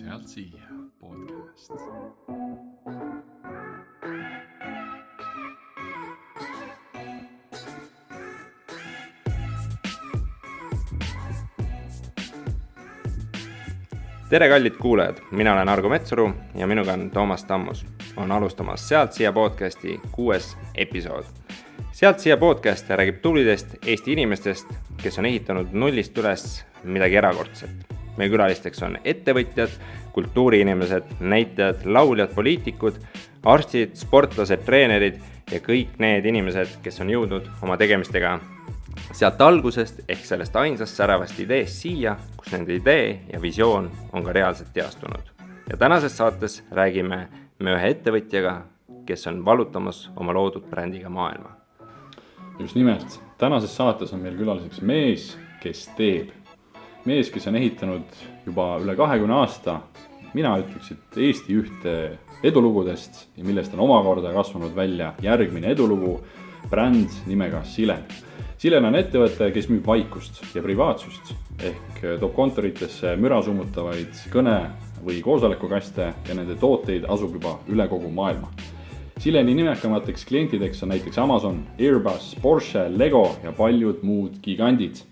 Sealt siia podcast. Tere kallid kuulajad, mina olen Argo Metsuru ja minuga on Toomas Tammus. On alustamas Sealt siia podcasti 6. episood. Sealt siia podcast räägib tublidest Eesti inimestest, kes on ehitanud nullist üles midagi erakordset. Meie külalisteks on ettevõtjad, kultuuriinimesed, näitajad, lauljad, poliitikud, arstid, sportlased, treenerid ja kõik need inimesed, kes on jõudnud oma tegemistega sealt algusest ehk sellest ainsast säravast ideest siia, kus nende idee ja visioon on ka reaalselt teastunud. Ja tänases saates räägime me ühe ettevõtjaga, kes on valutamas oma loodud brändiga maailma. Just nimelt, tänases saates on meil külaliseks mees, kes teeb. Mees, kes on ehitanud juba üle 20 aasta, mina ütleks, et Eesti ühte edulugudest, millest on omakorda kasvanud välja järgmine edulugu, bränd nimega Silen. Silen on ettevõte, kes müüb vaikust ja privaatsust ehk toob kontoritesse müra summutavaid kõne- või koosolekukaste ja nende tooteid asub juba üle kogu maailma. Sileni nimekamateks klientideks on näiteks Amazon, Airbus, Porsche, Lego ja paljud muud gigandid.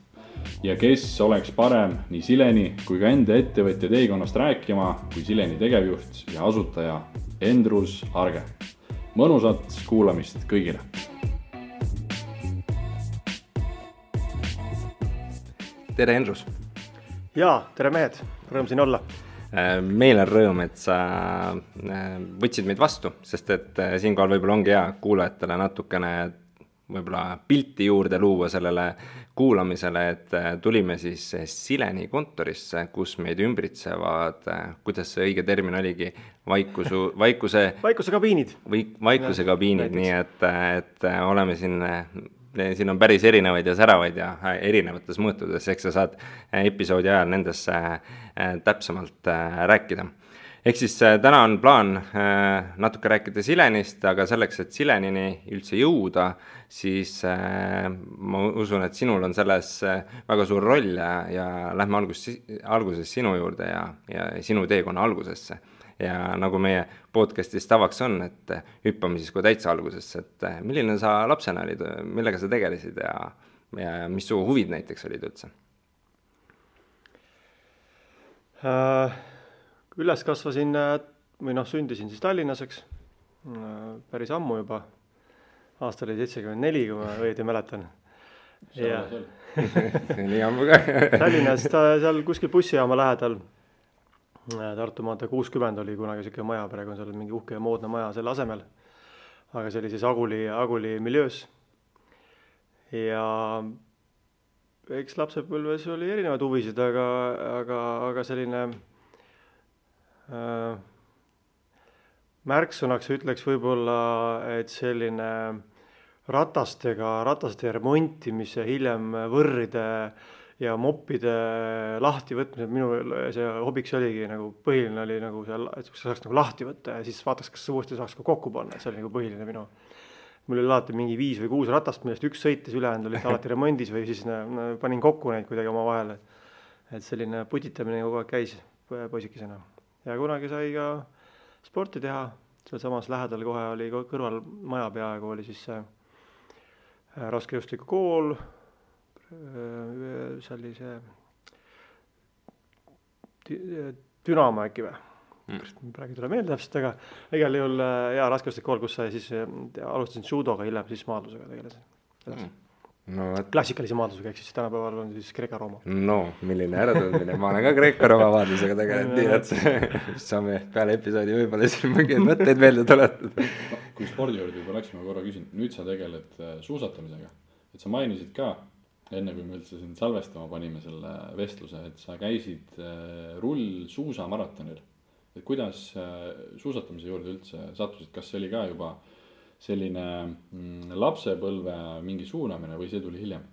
Ja kes oleks parem nii Sileni kui ka enda ettevõtja teekonnast rääkima kui Sileni tegevjuht ja asutaja Endrus Arge. Mõnusat kuulamist kõigile! Tere Endrus! Jaa, tere mehed, rõõm siin olla. Meil on rõõm, et sa võtsid meid vastu, sest et siinkohal võib-olla ongi hea kuulajatele natukene võib-olla pilti juurde luua sellele kuulamisele, et tulime siis Sileni kontorisse, kus meid ümbritsevad, kuidas see õige termin oligi, vaikuse kabiinid. Vaikuse kabiinid, nii et oleme siin on päris erinevaid ja säravaid ja erinevates mõõtudes, eks sa saad episoodi ajal nendesse täpsemalt rääkida. Ehk siis täna on plaan natuke rääkida Silenist, aga selleks, et Silenini üldse jõuda, siis ma usun, et sinul on selles väga suur roll ja lähme alguses sinu juurde ja sinu teekonna algusesse. Ja nagu meie podcastis tavaks on, et hüppame siis kui täitsa algusesse, et milline sa lapsena olid, millega sa tegelesid ja mis su huvid näiteks olid üldse? Üles kasvasin sündisin siis Tallinnas, eks, päris ammu juba. Aasta oli 74, kui ma õieti mäletan. Nii ammu ka. Tallinnas seal kuskil bussijaama lähedal. Tartu maantee 60 oli kunagi selline maja, praegu on seal mingi uhke ja moodne maja selle asemel. Aga see oli siis Aguli miljöös. Ja eks lapsepõlves oli erinevaid huvisid, aga selline märksõnaks ütleks võib-olla, et selline rataste remontimise, hiljem võrride ja moppide lahti võtmise, minu see hobiks oligi nagu põhiline oli nagu seal, et saaks nagu lahti võtta ja siis vaataks, kas uuesti saaks ka kokku panna, et see oli nagu põhiline minu. Mul oli alati mingi 5 või 6 ratast, millest üks sõitis, ülejäänud oli alati remondis või siis panin kokku neid kuidagi oma vahele. Et selline putitamine kogu aeg käis poisikesena. Ja kunagi sai ka sporti teha, seal samas lähedal kohe oli kõrval maja peaaegu oli siis raskejõustiku kool, see oli see Dünamo äkki või? Praegu tule meelde täpselt, aga igal juhul raskejõustiku kool, kus sai siis alustasin judoga, hiljem siis maadlusega tegelesin. Klassikalise maadlusega, ehk siis tänapäeval on siis Kreeka-Rooma. No, milline äratundmine, ma olen ka Kreeka-Rooma maadlusega tegelenud, nii et saame peale episoodi võib-olla siin mingeid mõtteid meelde tuletada. Kui spordi juurde juba läksime korra küsin, nüüd sa tegeled suusatamisega, et sa mainisid ka enne kui me üldse siin salvestama panime selle vestluse, et sa käisid rullsuusamaratonil. Et kuidas suusatamise juurde üldse sattusid, kas see oli ka juba selline lapsepõlve mingi suunamine või see tuli hiljem?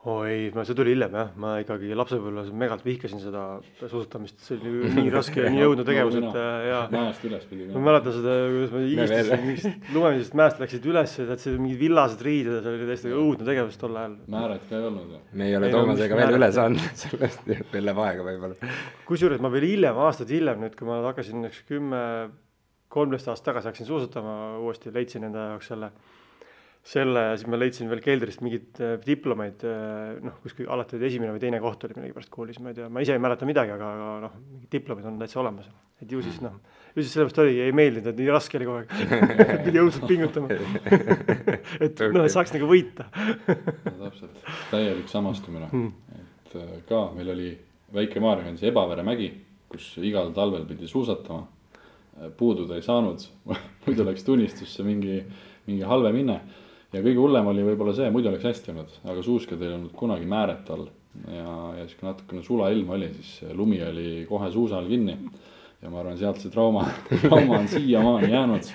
Ei, see tuli hiljem jah, ma ikkagi lapsepõlves megalt vihkasin seda suusatamist, see oli nii raske ja nii õudne tegevus, et ja mäest üles pidi. ma mäletan seda, kuidas ma higistasin mingist lumemisest mäest, läksid üles ja see mingid villased riided ja see oli täiesti õudne tegevus tol ajal. Määret ka ei olnud. Me ei ole Toomasega veel üle saanud, sellest veel läheb aega võib-olla. Kusjuures ma veel hiljem, aastaid hiljem nüüd, kui ma hakkasin 10-13 aastat tagasi hakkasin suusatama uuesti, leidsin enda jaoks selle ja siis ma leidsin veel keldrist mingid diplomeid, kuskil alati esimene või teine koht oli millegipärast koolis, ma ei tea, ma ise ei mäleta midagi, aga mingid diplomid on täitsa olemas. Et ju siis sellepärast ei meeldinud, et nii raske oli kogu aeg, pidi õudselt pingutama, et saaks nagu võita. Täpselt, täielik samastumine, et ka meil oli väike Maarjakandis Ebavere mägi, kus igal talvel pidi suusatama, puududa ei saanud, muidu läks tunnistusse mingi halve minne. Ja kõige hullem oli võib-olla see, muidu oleks hästi olnud, aga suuskad ei olnud kunagi määret all ja siis kui natukene sula ilm oli, siis lumi oli kohe suusal kinni ja ma arvan, sealt see trauma on siiamaani jäänud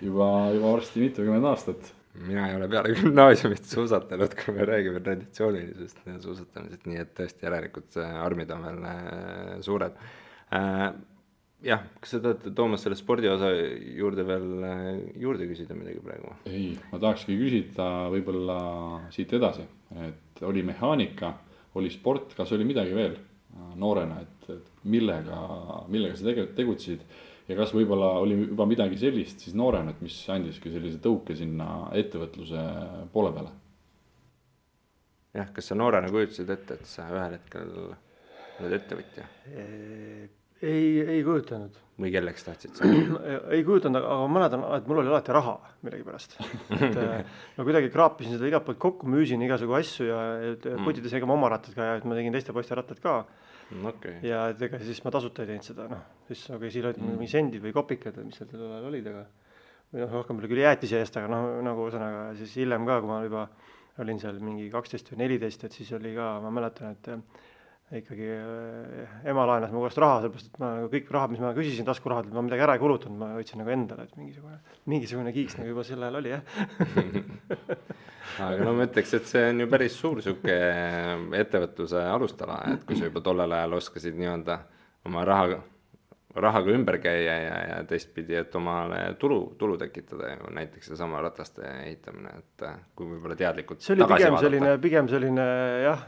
juba varsti mitukümmend aastat. Mina ei ole peale gümnaasiumist suusatanud, kui me räägime traditsioonilisest suusatamisest, nii et tõesti järelikult armid on veel suured. Jah, kas sa tahad, Toomas, selle spordiosa juurde veel juurde küsida midagi praegu? Ei, ma tahakski küsida võib-olla siit edasi, et oli mehaanika, oli sport, kas oli midagi veel noorena, et millega sa tegutsid ja kas võib-olla oli juba midagi sellist siis noorena, et mis andiski sellise tõuke sinna ettevõtluse poole peale? Jah, kas sa noorena kujutasid ette, et sa ühel hetkel oled ettevõtja? Ei kujutanud. Või kelleks tahtsid sa? Ei kujutanud, aga ma mäletan, et mul oli alati raha millegipärast. Ma kuidagi kraapisin seda igalt poolt kokku, müüsin igasugu asju ja putides ega ma oma rattad ka ja ma tegin teiste poiste rattad ka. Okay. Ja ega siis ma tasuta ei teinud seda, siis siin olid mingi sendid või kopikad, mis seal ajal olid, aga või rohkem oli küll jäätise eest, aga nagu ühesõnaga siis hiljem ka, kui ma juba olin seal mingi 12 või 14, et siis oli ka, ma mäletan, et ikkagi ema laenas mu kohast raha, sellepärast, et ma kõik raha, mis ma küsisin taskurahad, ma midagi ära ei kulutanud, ma võtsin nagu endale, et mingisugune kiiks nagu juba sel ajal oli, jah. Aga ma ütleks, et see on ju päris suur siuke ettevõtluse alustala, et kui sa juba tollel ajal oskasid nii-öelda oma rahaga ümber käia ja teistpidi, et omale tulu tekitada ju näiteks see sama rataste ehitamine, et kui võib-olla teadlikult see oli pigem selline jah,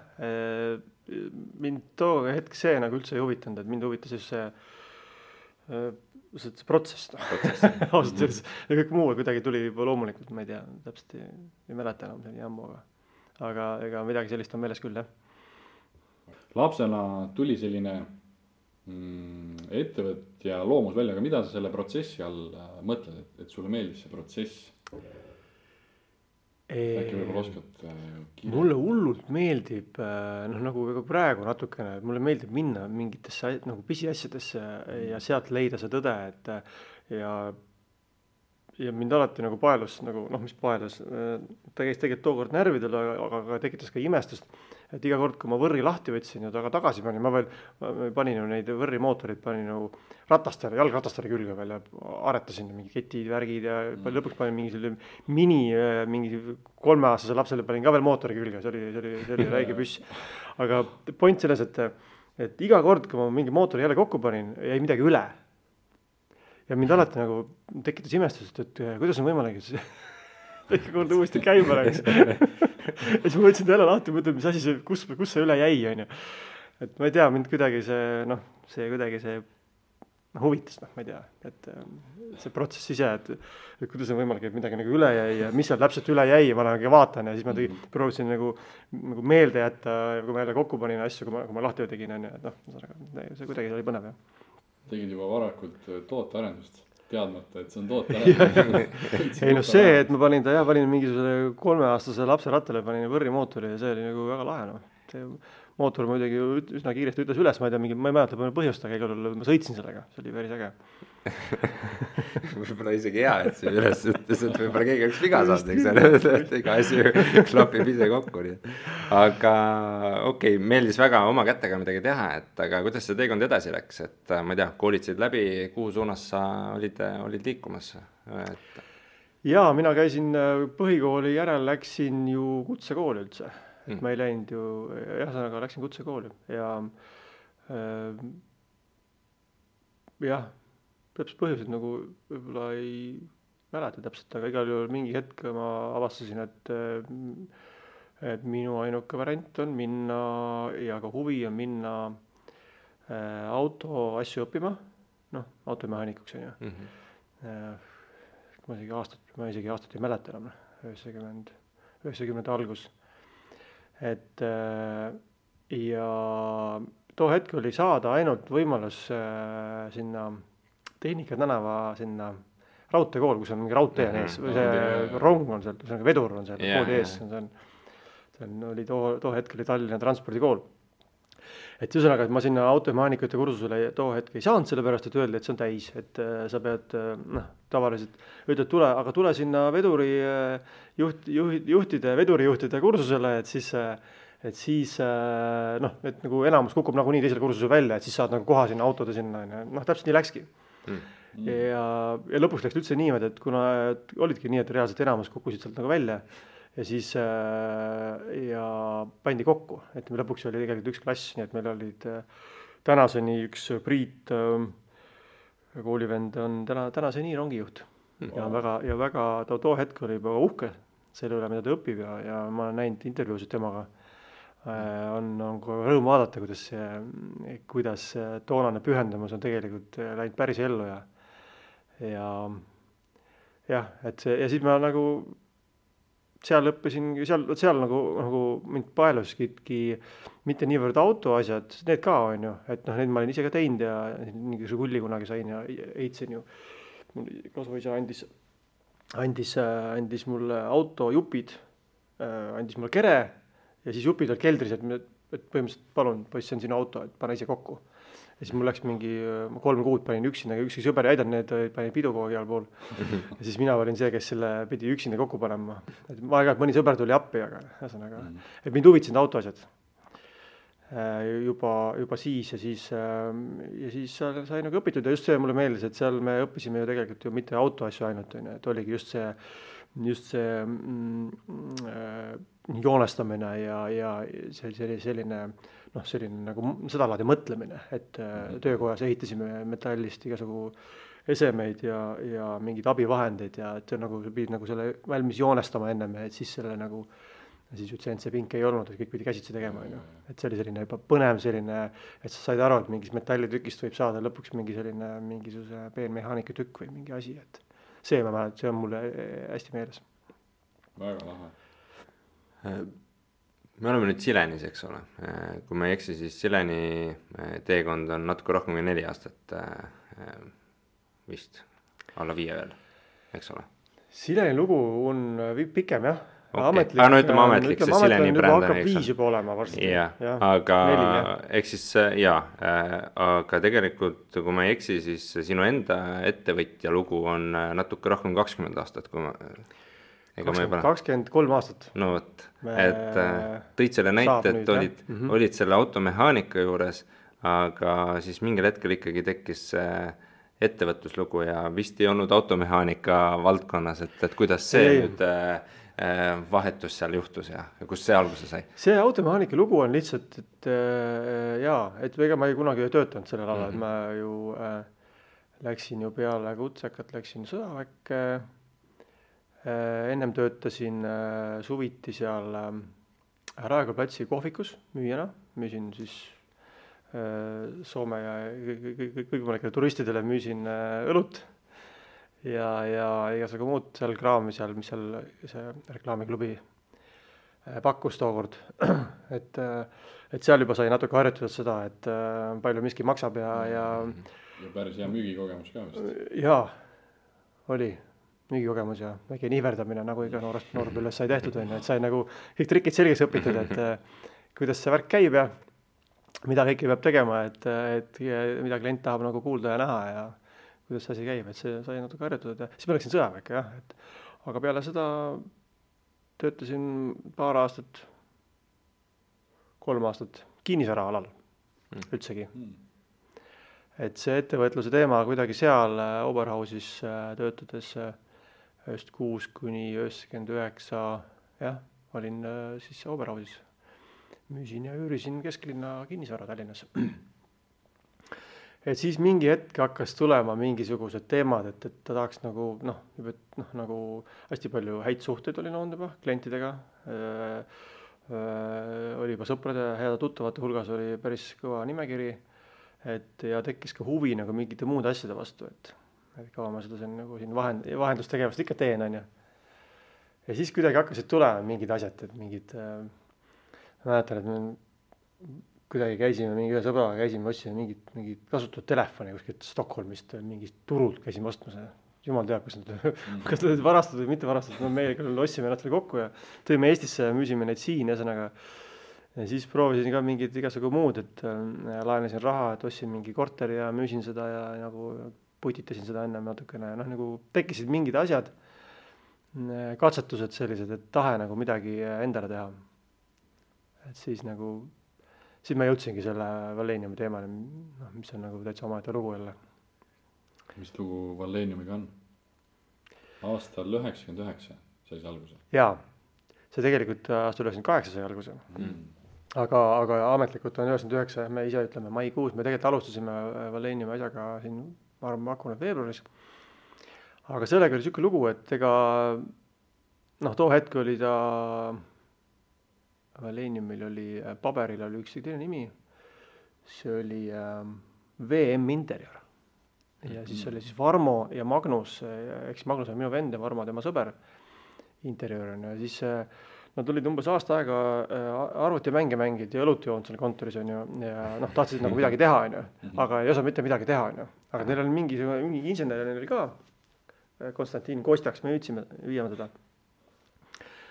mind too hetk see nagu üldse ei huvitanud, et mind huvitas just see protsess. Ausalt öeldes ja kõik muu kuidagi tuli juba loomulikult, ma ei tea, täpselt ei mäleta enam selline jammu, aga ega midagi sellist on meeles küll, jah. Lapsena tuli selline ettevõtja loomus välja, aga mida sa selle protsessi all mõtled, et sulle meeldis see protsess? Äkki võib-olla oskad mulle hullult meeldib, nagu praegu natukene, mulle meeldib minna mingitesse nagu pisiasjadesse ja sealt leida see tõde, et ja mind alati nagu paelus, mis paelus, ta käis tegelikult tookord närvidel, aga tekitas ka imestust, et iga kord, kui ma võrri lahti võtsin ja taga tagasi panin, ma panin ju neid võrrimootorid, panin nagu jalgratastele külge veel ja aretasin mingi ketid, värgid ja lõpuks panin mingi selline mingi 3-aastase lapsele panin ka veel mootori külge, see oli räige püss. Aga point selles, et iga kord, kui ma mingi mootori jälle kokku panin, jäi midagi üle. Ja mind alati nagu tekitas imestust, et kuidas on võimalik, et iga kord uuesti käima läks. Ja siis ma võtsin ta jälle lahti, mõtled, mis asi see, kus see üle jäi, on ju. Et ma ei tea, mind kuidagi see huvitas, ma ei tea, et see protsess ise, et kuidas on võimalik, et midagi nagu üle jäi ja mis seal täpselt üle jäi ja ma nagu vaatan ja siis ma proovisin nagu meelde jätta, kui ma jälle kokku panin asju, kui ma lahti tegin, on ju, et see kuidagi oli põnev, jah. Tegid juba varakult tootearendust, teadmata, et see on tootearendus. Ei see, et ma panin mingisuguse 3-aastase lapse rattale, panin võrrimootori ja see oli nagu väga lahe, See mootor muidugi üsna kiiresti ütles üles, ma ei mäleta põhjust, aga igal juhul ma sõitsin sellega, see oli päris äge. Võib-olla isegi hea, et see üles ütles, et võib-olla keegi oleks viga saanud, et iga asi klapib ise kokku. Aga okei, meeldis väga oma kätega midagi teha, aga kuidas see teekond edasi läks, et ma ei tea, koolitsid läbi, kuhu suunas sa olid liikumas? Jaa, mina käisin põhikooli järel, läksin ju kutsekooli üldse. et ma ei läinud ju, ühesõnaga läksin kutsekooli ja jah, täpselt põhjused nagu võib-olla ei mäleta täpselt, aga igal juhul mingi hetk ma avastasin, et minu ainuke variant on minna ja ka huvi on minna auto asju õppima, noh, automehaanikuks on ju. Ma isegi aastat ei mäleta enam, 90 algus. Et ja too hetk oli saada ainult võimalus sinna Tehnika tänava sinna raudteekool, kus on mingi raudtee on ees, või see rong on seal, see on vedur on seal kooli ees, oli too hetk oli Tallinna transpordikool. Et ühesõnaga, et ma sinna automehaanikute kursusele too hetk ei saanud, sellepärast, et öeldi, et see on täis, et sa pead, tavaliselt ütled, tule sinna vedurijuhtide kursusele, et siis nagu enamus kukub nagunii teisel kursusel välja, et siis saad nagu koha sinna autode sinna, täpselt nii läkski. Ja lõpuks läks üldse niimoodi, et kuna olidki nii, et reaalselt enamus kukkusid sealt nagu välja ja siis ja pandi kokku, et lõpuks oli tegelikult üks klass, nii et meil olid tänaseni üks Priit koolivend on tänaseni rongijuht ja väga too hetk oli juba uhke selle üle, mida ta õpib ja ma olen näinud intervjuusid temaga. On rõõm vaadata, kuidas toonane pühendumus on tegelikult läinud päris ellu ja siis ma nagu seal õppisin, seal nagu mind paeluski mitte niivõrd autoasjad, need ka on ju, et need ma olin ise ka teinud ja mingisuguse kulli kunagi sain ja heitsin ju. Kasvuisa andis mulle autojupid, andis mulle kere ja siis jupid olid keldris, et põhimõtteliselt palun, poiss, see on sinu auto, et pane ise kokku. Ja siis mul läks mingi 3 kuud panin üksinda, ükski sõber ei aidanud, need panin pidu kogu igal pool. Ja siis mina olin see, kes selle pidi üksinda kokku panema. Et ma aeg-ajalt mõni sõber tuli appi, aga ühesõnaga, et mind huvitasid autoasjad. Juba siis ja siis sai nagu õpitud ja just see mulle meeldis, et seal me õppisime ju tegelikult ju mitte autoasju ainult, et oligi just see joonestamine ja selline nagu seda laadi mõtlemine, et töökojas ehitasime metallist igasugu esemeid ja mingeid abivahendeid ja et nagu pidid nagu selle valmis joonestama ennem, et siis selle nagu siis ütlesin, et see pink ei olnud, et kõik pidi käsitsi tegema, et see oli selline juba põnev selline, et sa said aru, et mingis metallitükist võib saada lõpuks mingisuguse peenmehaanika tükk või mingi asi, et see on mulle hästi meeles. Väga lahe. Me oleme nüüd Silenis, eks ole. Kui ma ei eksi, siis Sileni teekond on natuke rohkem kui 4 aastat vist, alla 5 veel, eks ole. Sileni lugu on pikem, jah. Okay. Ütleme ametlik, see Sileni bränd on, hakkab 5 juba olema varsti. Aga eks siis aga tegelikult, kui ma ei eksi, siis sinu enda ettevõtja lugu on natuke rohkem 20 aastat, kui ma 23 aastat. No võt, et tõid selle näite, et olid selle automehaanika juures, aga siis mingil hetkel ikkagi tekkis ettevõtluslugu ja vist ei olnud automehaanika valdkonnas, et kuidas see nüüd vahetus seal juhtus ja kus see alguse sai? See automehaanika lugu on lihtsalt, et ega ma ei kunagi töötanud sellel alal, et ma ju läksin ju peale kutsekat, läksin sõjaväkke, ennem töötasin suviti seal Raekoja platsi kohvikus müüjana, müüsin siis Soome ja kõigile turistidele müüsin õlut ja igasugu muud seal kraami seal, mis seal see reklaamiklubi pakkus tookord. Et seal juba sai natuke harjutada seda, et palju miski maksab ja päris hea müügikogemus ka vist. Jaa, oli müügikogemus ja väike nihverdamine, nagu iga noorpõlves sai tehtud, et sai nagu kõik trikid selgeks õpitud, et kuidas see värk käib ja mida kõike peab tegema, et mida klient tahab nagu kuulda ja näha ja kuidas see asi käib, et see sai natuke harjutada. Siis ma läksin sõjaväkke, jah, aga peale seda töötasin 2 aastat, 3 aastat kinnisvara alal üldsegi. Et see ettevõtluse teema kuidagi seal Oberhausis töötades 96 kuni 99, jah, olin siis Oberhausis müüsin ja üürisin kesklinna kinnisvara Tallinnas. Et siis mingi hetk hakkas tulema mingisugused teemad, et ta tahaks nagu nagu hästi palju häid suhteid oli olnud juba klientidega. Oli juba sõprade ja heade tuttavate hulgas oli päris kõva nimekiri, et ja tekkis ka huvi nagu mingite muude asjade vastu, et kaua ma seda nagu siin vahendustegevust ikka teen, on ju. Ja siis kuidagi hakkasid tulema mingid asjad, et mingid, ma mäletan, et me kuidagi käisime, mingi ühe sõbraga käisime, otsime mingit kasutatud telefoni kuskilt Stockholmist, mingist turult käisime ostmas. Jumal teab, kas nad varastatud või mitte varastatud, no meie küll otsime ennast kokku ja tõime Eestisse ja müüsime neid siin, ühesõnaga. Ja siis proovisin ka mingid igasugu muud, et laenasin raha, et ostsin mingi korteri ja müüsin seda ja nagu putitasin seda enne natukene, nagu tekkisid mingid asjad, katsetused sellised, et tahe nagu midagi endale teha. Et siis ma jõudsingi selle Walleniumi teemale, mis on nagu täitsa omaette lugu jälle. Mis lugu Walleniumiga on? Aastal 99 sai see alguse? Jaa, see tegelikult aastal 98 sai alguse. Aga ametlikult on 99, me ise ütleme maikuus, me tegelikult alustasime Walleniumi asjaga siin, ma arvan, hakkunud veebruaris. Aga sellega oli siuke lugu, et ega too hetk oli ta Walleniumil oli, paberil oli üks teine nimi, see oli VM Interior. Ja siis oli siis Varmo ja Magnus, eks Magnus on minu vend ja Varmo tema sõber Interior. Ja siis nad olid umbes aasta aega arvutimänge mängid ja õlut joonud seal kontoris on ju, ja tahtsid nagu midagi teha on ju, aga ei osa mitte midagi teha on ju. Aga neil oli mingi insener oli ka, Konstantin Kostjaks, me viime teda.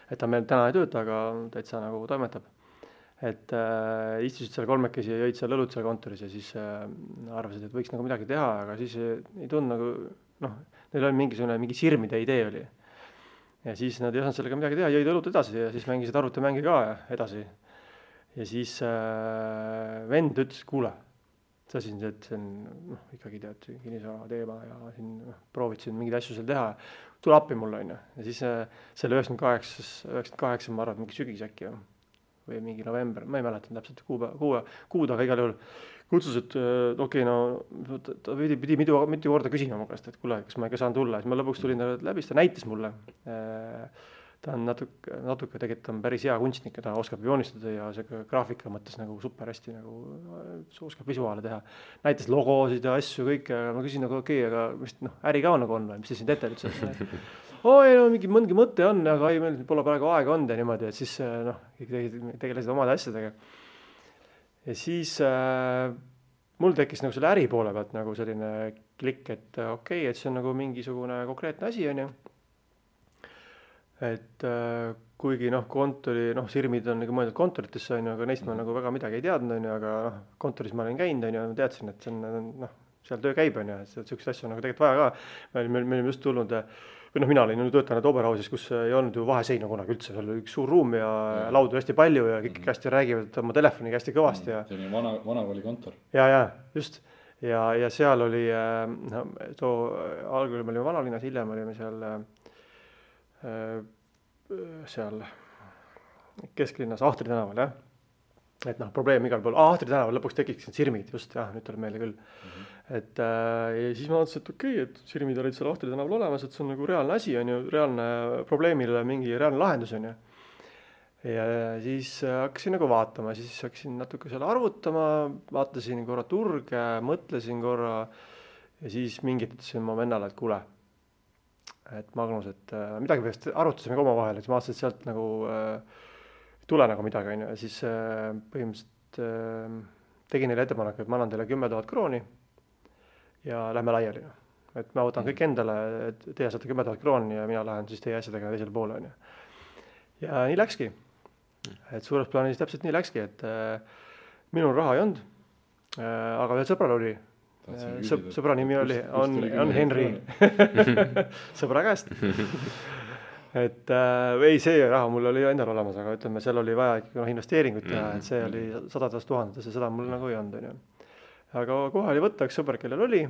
Et ta meil täna ei tööta, aga täitsa nagu toimetab. Et istusid seal kolmekesi ja jõid seal õlut seal kontoris ja siis arvasid, et võiks nagu midagi teha, aga siis ei tundnud nagu, neil oli mingi sirmide idee oli. Ja siis nad ei osanud sellega midagi teha, jõid õlut edasi ja siis mängisid arvutimänge ka edasi. Ja siis vend ütles, kuule, sa siin, et see on ikkagi tead kinnisvara teema ja siin proovid siin mingeid asju seal teha, tule appi mulle on ju. Ja siis selle 98 ma arvan, mingi sügis äkki või mingi november, ma ei mäletan täpselt kuud, aga igal juhul kutsus, et ta pidi mitu korda küsima mu käest, et kuule, kas ma ikka saan tulla. Siis ma lõpuks tulin läbi, ta näitas mulle. Ta on natuke tegelikult on päris hea kunstnik ja ta oskab joonistada ja see graafika mõttes nagu super hästi nagu oskab visuaale teha. Näitas logosid ja asju kõik ja ma küsin nagu okei, aga mis äri ka nagu on või, mis te siin teete üldse? Mingi mõte on, aga meil pole praegu aega olnud ja niimoodi, et siis tegelesid omade asjadega. Ja siis mul tekkis nagu selle äri poole pealt nagu selline klikk, et okei, et see on nagu mingisugune konkreetne asi on ju. Et kuigi kontori, sirmid on nagu mõeldud kontoritesse on ju, aga neist ma nagu väga midagi ei teadnud on ju, aga kontoris ma olin käinud on ju, teadsin, et see on seal töö käib on ju, et sellised asju on nagu tegelikult vaja ka. Me olime just tulnud, või mina olin töötanud Oberhausis, kus ei olnud ju vaheseina kunagi üldse, seal oli üks suur ruum ja laudu hästi palju ja kõik hästi räägivad oma telefoniga hästi kõvasti. See oli vanakooli kontor. Ja, just. Ja seal oli, algul me olime Vanalinnas, hiljem olime seal Kesklinnas Ahtri tänaval, jah. Et probleem igal pool, Ahtri tänaval lõpuks tekiks sirmid, just, jah, nüüd tuleb meelde küll. Et ja siis ma mõtlesin, et okei, et sirmid olid seal Ahtri tänaval olemas, et see on nagu reaalne asi, on ju, reaalne probleemile mingi reaalne lahendus, on ju. Ja siis hakkasin nagu vaatama, siis hakkasin natuke seal arvutama, vaatasin korra turge, mõtlesin korra ja siis mingit ütlesin ma vennale, et kuule, et Magnus, et midagi peaks arutasime ka oma vahel, et ma vaatasin, et sealt nagu tule nagu midagi, on ju, ja siis põhimõtteliselt tegin neile ettepaneku, et ma annan teile 10 000 krooni ja lähme laiali. Et ma võtan kõik endale, et teie saate 10 000 krooni ja mina lähen siis teie asjadega teisele poole, on ju. Ja nii läkski. Et suures plaanis täpselt nii läkski, et minul raha ei olnud, aga veel sõbral oli. Sõbra nimi on Henri. Sõbra käest. Et ei, see raha mul oli endal olemas, aga ütleme, seal oli vaja ikka investeeringut teha, et see oli 100 000 ja seda mul nagu ei olnud, on ju. Aga kohe oli võtta üks sõber, kellel oli.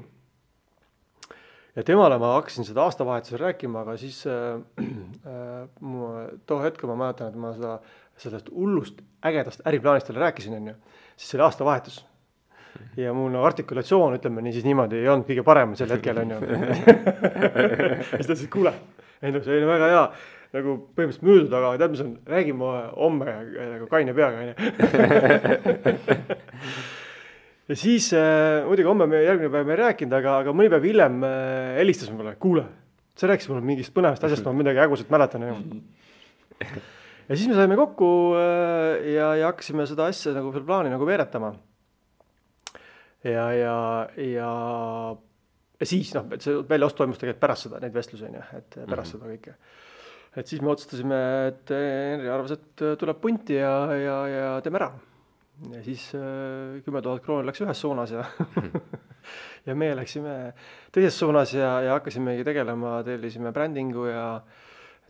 Ja temale ma hakkasin seda aastavahetusel rääkima, aga siis too hetk ma mäletan, et ma seda sellest hullust ägedast äriplaanist talle rääkisin, on ju, siis see oli aastavahetus. Ja mul artikulatsioon, ütleme nii, siis niimoodi ei olnud kõige parem sel hetkel, on ju. Siis ta ütles, kuule, see oli väga hea, nagu põhimõtteliselt müüdud, aga tead, mis on, räägime homme nagu kaine peaga, on ju. Ja siis muidugi homme järgmine päev me ei rääkinud, aga mõni päev hiljem helistas mulle, kuule, sa rääkisid mulle mingist põnevast asjast, ma midagi ägusat mäletan. Ja siis me saime kokku ja hakkasime seda asja nagu veel plaani nagu veeretama. Ja siis, et see väljaost toimus tegelikult pärast seda, neid vestlusi, et pärast seda kõike. Et siis me otsustasime, et Henri arvas, et tuleb punti ja teeme ära. Ja siis 10 000 krooni läks ühes suunas ja meie läksime teises suunas ja hakkasimegi tegelema, tellisime brändingu ja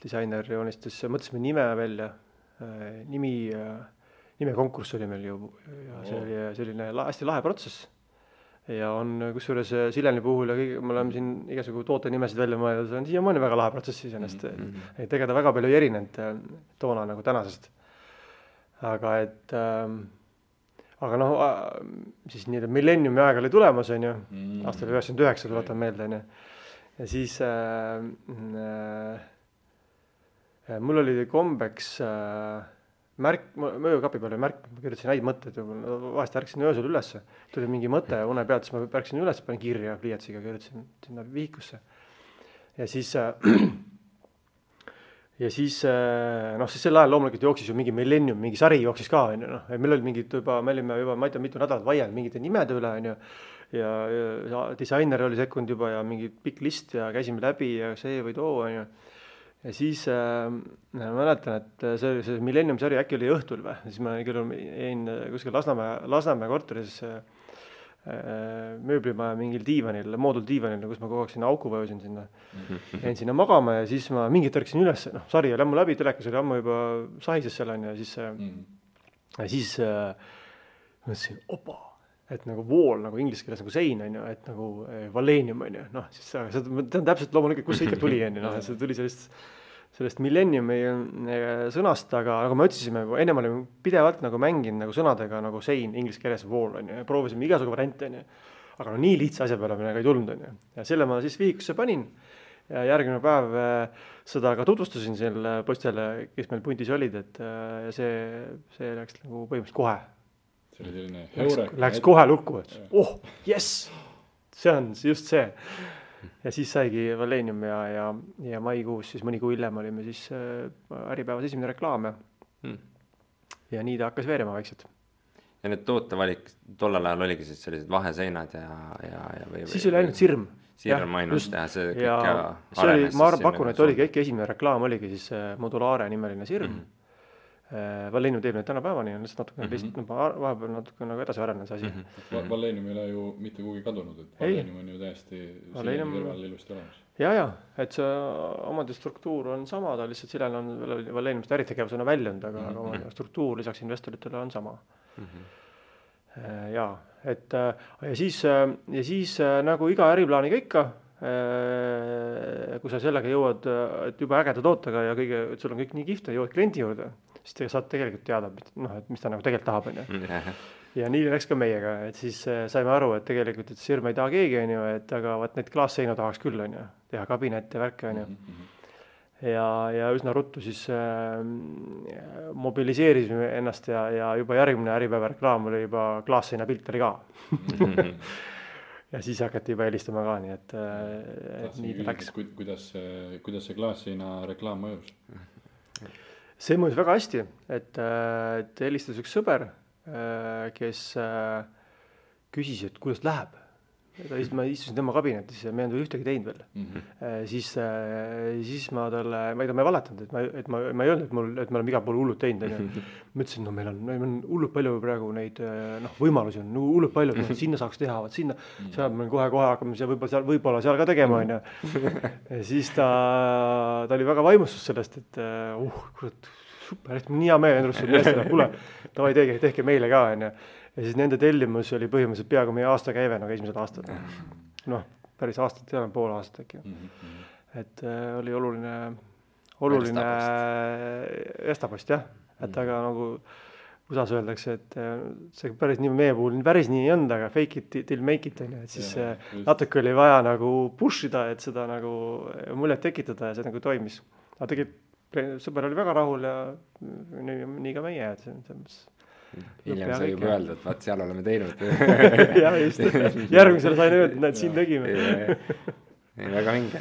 disainer joonistas, mõtlesime nime välja, nime konkurss oli meil ju ja see oli selline hästi lahe protsess. Ja on kusjuures Sileni puhul ja kõige, me oleme siin igasugu tootenimesid välja mõelnud, see on siiamaani väga lahe protsess iseenesest. Tegeda väga palju ei erinenud toona nagu tänasest. Aga noh, siis nii, millenniumi aeg oli tulemas, on ju, aastal 99, tuletan meelde, on ju. Ja siis mul oli kombeks märk, möökapi peal oli märk, ma kirjutasin häid mõtteid, vahest ärksin öösel üles, tuli mingi mõte une pealt, siis ma ärksin üles, panin kirja pliiatsiga, kirjutasin sinna vihikusse. Ja siis sel ajal loomulikult jooksis ju mingi millennium, mingi sari jooksis ka, on ju, noh, meil oli mingid juba, me olime juba, ma ei tea, mitu nädalat vaielnud mingite nimede üle, on ju, ja disainer oli sekkunud juba ja mingi pikk list ja käisime läbi ja see või too, on ju. Ja siis ma mäletan, et see millennium sari äkki oli õhtul või, siis ma jäin kuskil Lasnamäe korteris mööblimaja mingil diivanil, mooduldiivanil, kus ma kogu aeg sinna auku vajusin sinna. Jäin sinna magama ja siis ma mingit ärksin üles, noh, sari oli ammu läbi, telekas oli ammu juba sahises seal on ja siis mõtlesin, opa, et nagu wall, nagu inglise keeles nagu sein on ju, et nagu Valenium on ju, noh, siis see on täpselt loomulikult, kus see ikka tuli on ju, noh, see tuli sellest millenniumi sõnast, aga nagu me otsisime, ennem olime pidevalt nagu mänginud nagu sõnadega nagu sein, inglise keeles wall on ju, ja proovisime igasugu variante on ju, aga no nii lihtsa asja peale minna ka ei tulnud on ju, ja selle ma siis vihikusse panin ja järgmine päev seda ka tutvustasin selle postele, kes meil puntis olid, et ja see läks nagu põhimõtteliselt kohe. See oli selline heurek. Läks kohe lukku, et jess, see on just see. Ja siis saigi Valenium ja maikuus, siis mõni kuu hiljem olime siis Äripäevas esimene reklaam ja nii ta hakkas veerema vaikselt. Ja need tootevalik tollal ajal oligi siis sellised vaheseinad või siis oli ainult sirm. Sirm ainult ja see kõik ja arenes. Ma pakun, et oligi äkki esimene reklaam oligi siis Modulaare nimeline sirm. Valenium teeb neid tänapäevani, on lihtsalt natukene vahepeal natuke nagu edasi arenenud see asi. Valenium ei ole ju mitte kuhugi kadunud, et Valenium on ju täiesti Sileni kõrval ilusti olemas. Ja, et see omade struktuur on sama, ta lihtsalt Silel on Valeniumist äritegevusena väljunud, aga omade struktuur lisaks investoritele on sama. Ja siis nagu iga äriplaaniga ikka, kui sa sellega jõuad, et juba ägeda tootega ja kõige, et sul on kõik nii kihvt ja jõuad kliendi juurde, siis te saad tegelikult teada, et mis ta nagu tegelikult tahab. Ja nii läks ka meiega, et siis saime aru, et tegelikult et sirm ei taha keegi, et aga vaat neid klaasseinu tahaks küll, teha kabinette, värke. Ja üsna ruttu siis mobiliseerisime ennast ja juba järgmine Äripäeva reklaam oli juba klaasseina pilt oli ka. Ja siis hakati juba helistama ka, nii et nii ta läks. Kuidas see klaasseina reklaam mõjus? See mõjus väga hästi, et helistas üks sõber, kes küsis, et kuidas läheb. Ma istusin tema kabinetis ja me ei olnud ühtegi teinud veel. Siis ma talle, ma ei valetanud, et ma ei öelnud, et me oleme igal pool hullud teinud. Ma ütlesin, meil on hullud palju praegu neid võimalusi on, hullud palju, sinna saaks teha, sinna, seal me kohe hakkame võib-olla seal ka tegema. Ja siis ta oli väga vaimustus sellest, et kurat, super, et nii hea meel endrustud meestele, kuule, davai tehke meile ka. Ja siis nende tellimus oli põhimõtteliselt peaaegu meie aasta käive, nagu esimesed aastad. Noh, päris aastat, seal on pool aastat äkki. Et oli oluline Estapost, jah. et aga nagu USA-s öeldakse, et see päris nii meie puhul päris nii ei olnud, aga fake it till make it on ju, et siis natuke oli vaja nagu push ida, et seda nagu muljet tekitada ja see nagu toimis. aga tegelikult sõber oli väga rahul ja nii ka meie, et hiljem sai juba öelda, et vaat seal oleme teinud. jah, just, järgmisele sain öelda, et näed, siin tegime. väga vinge.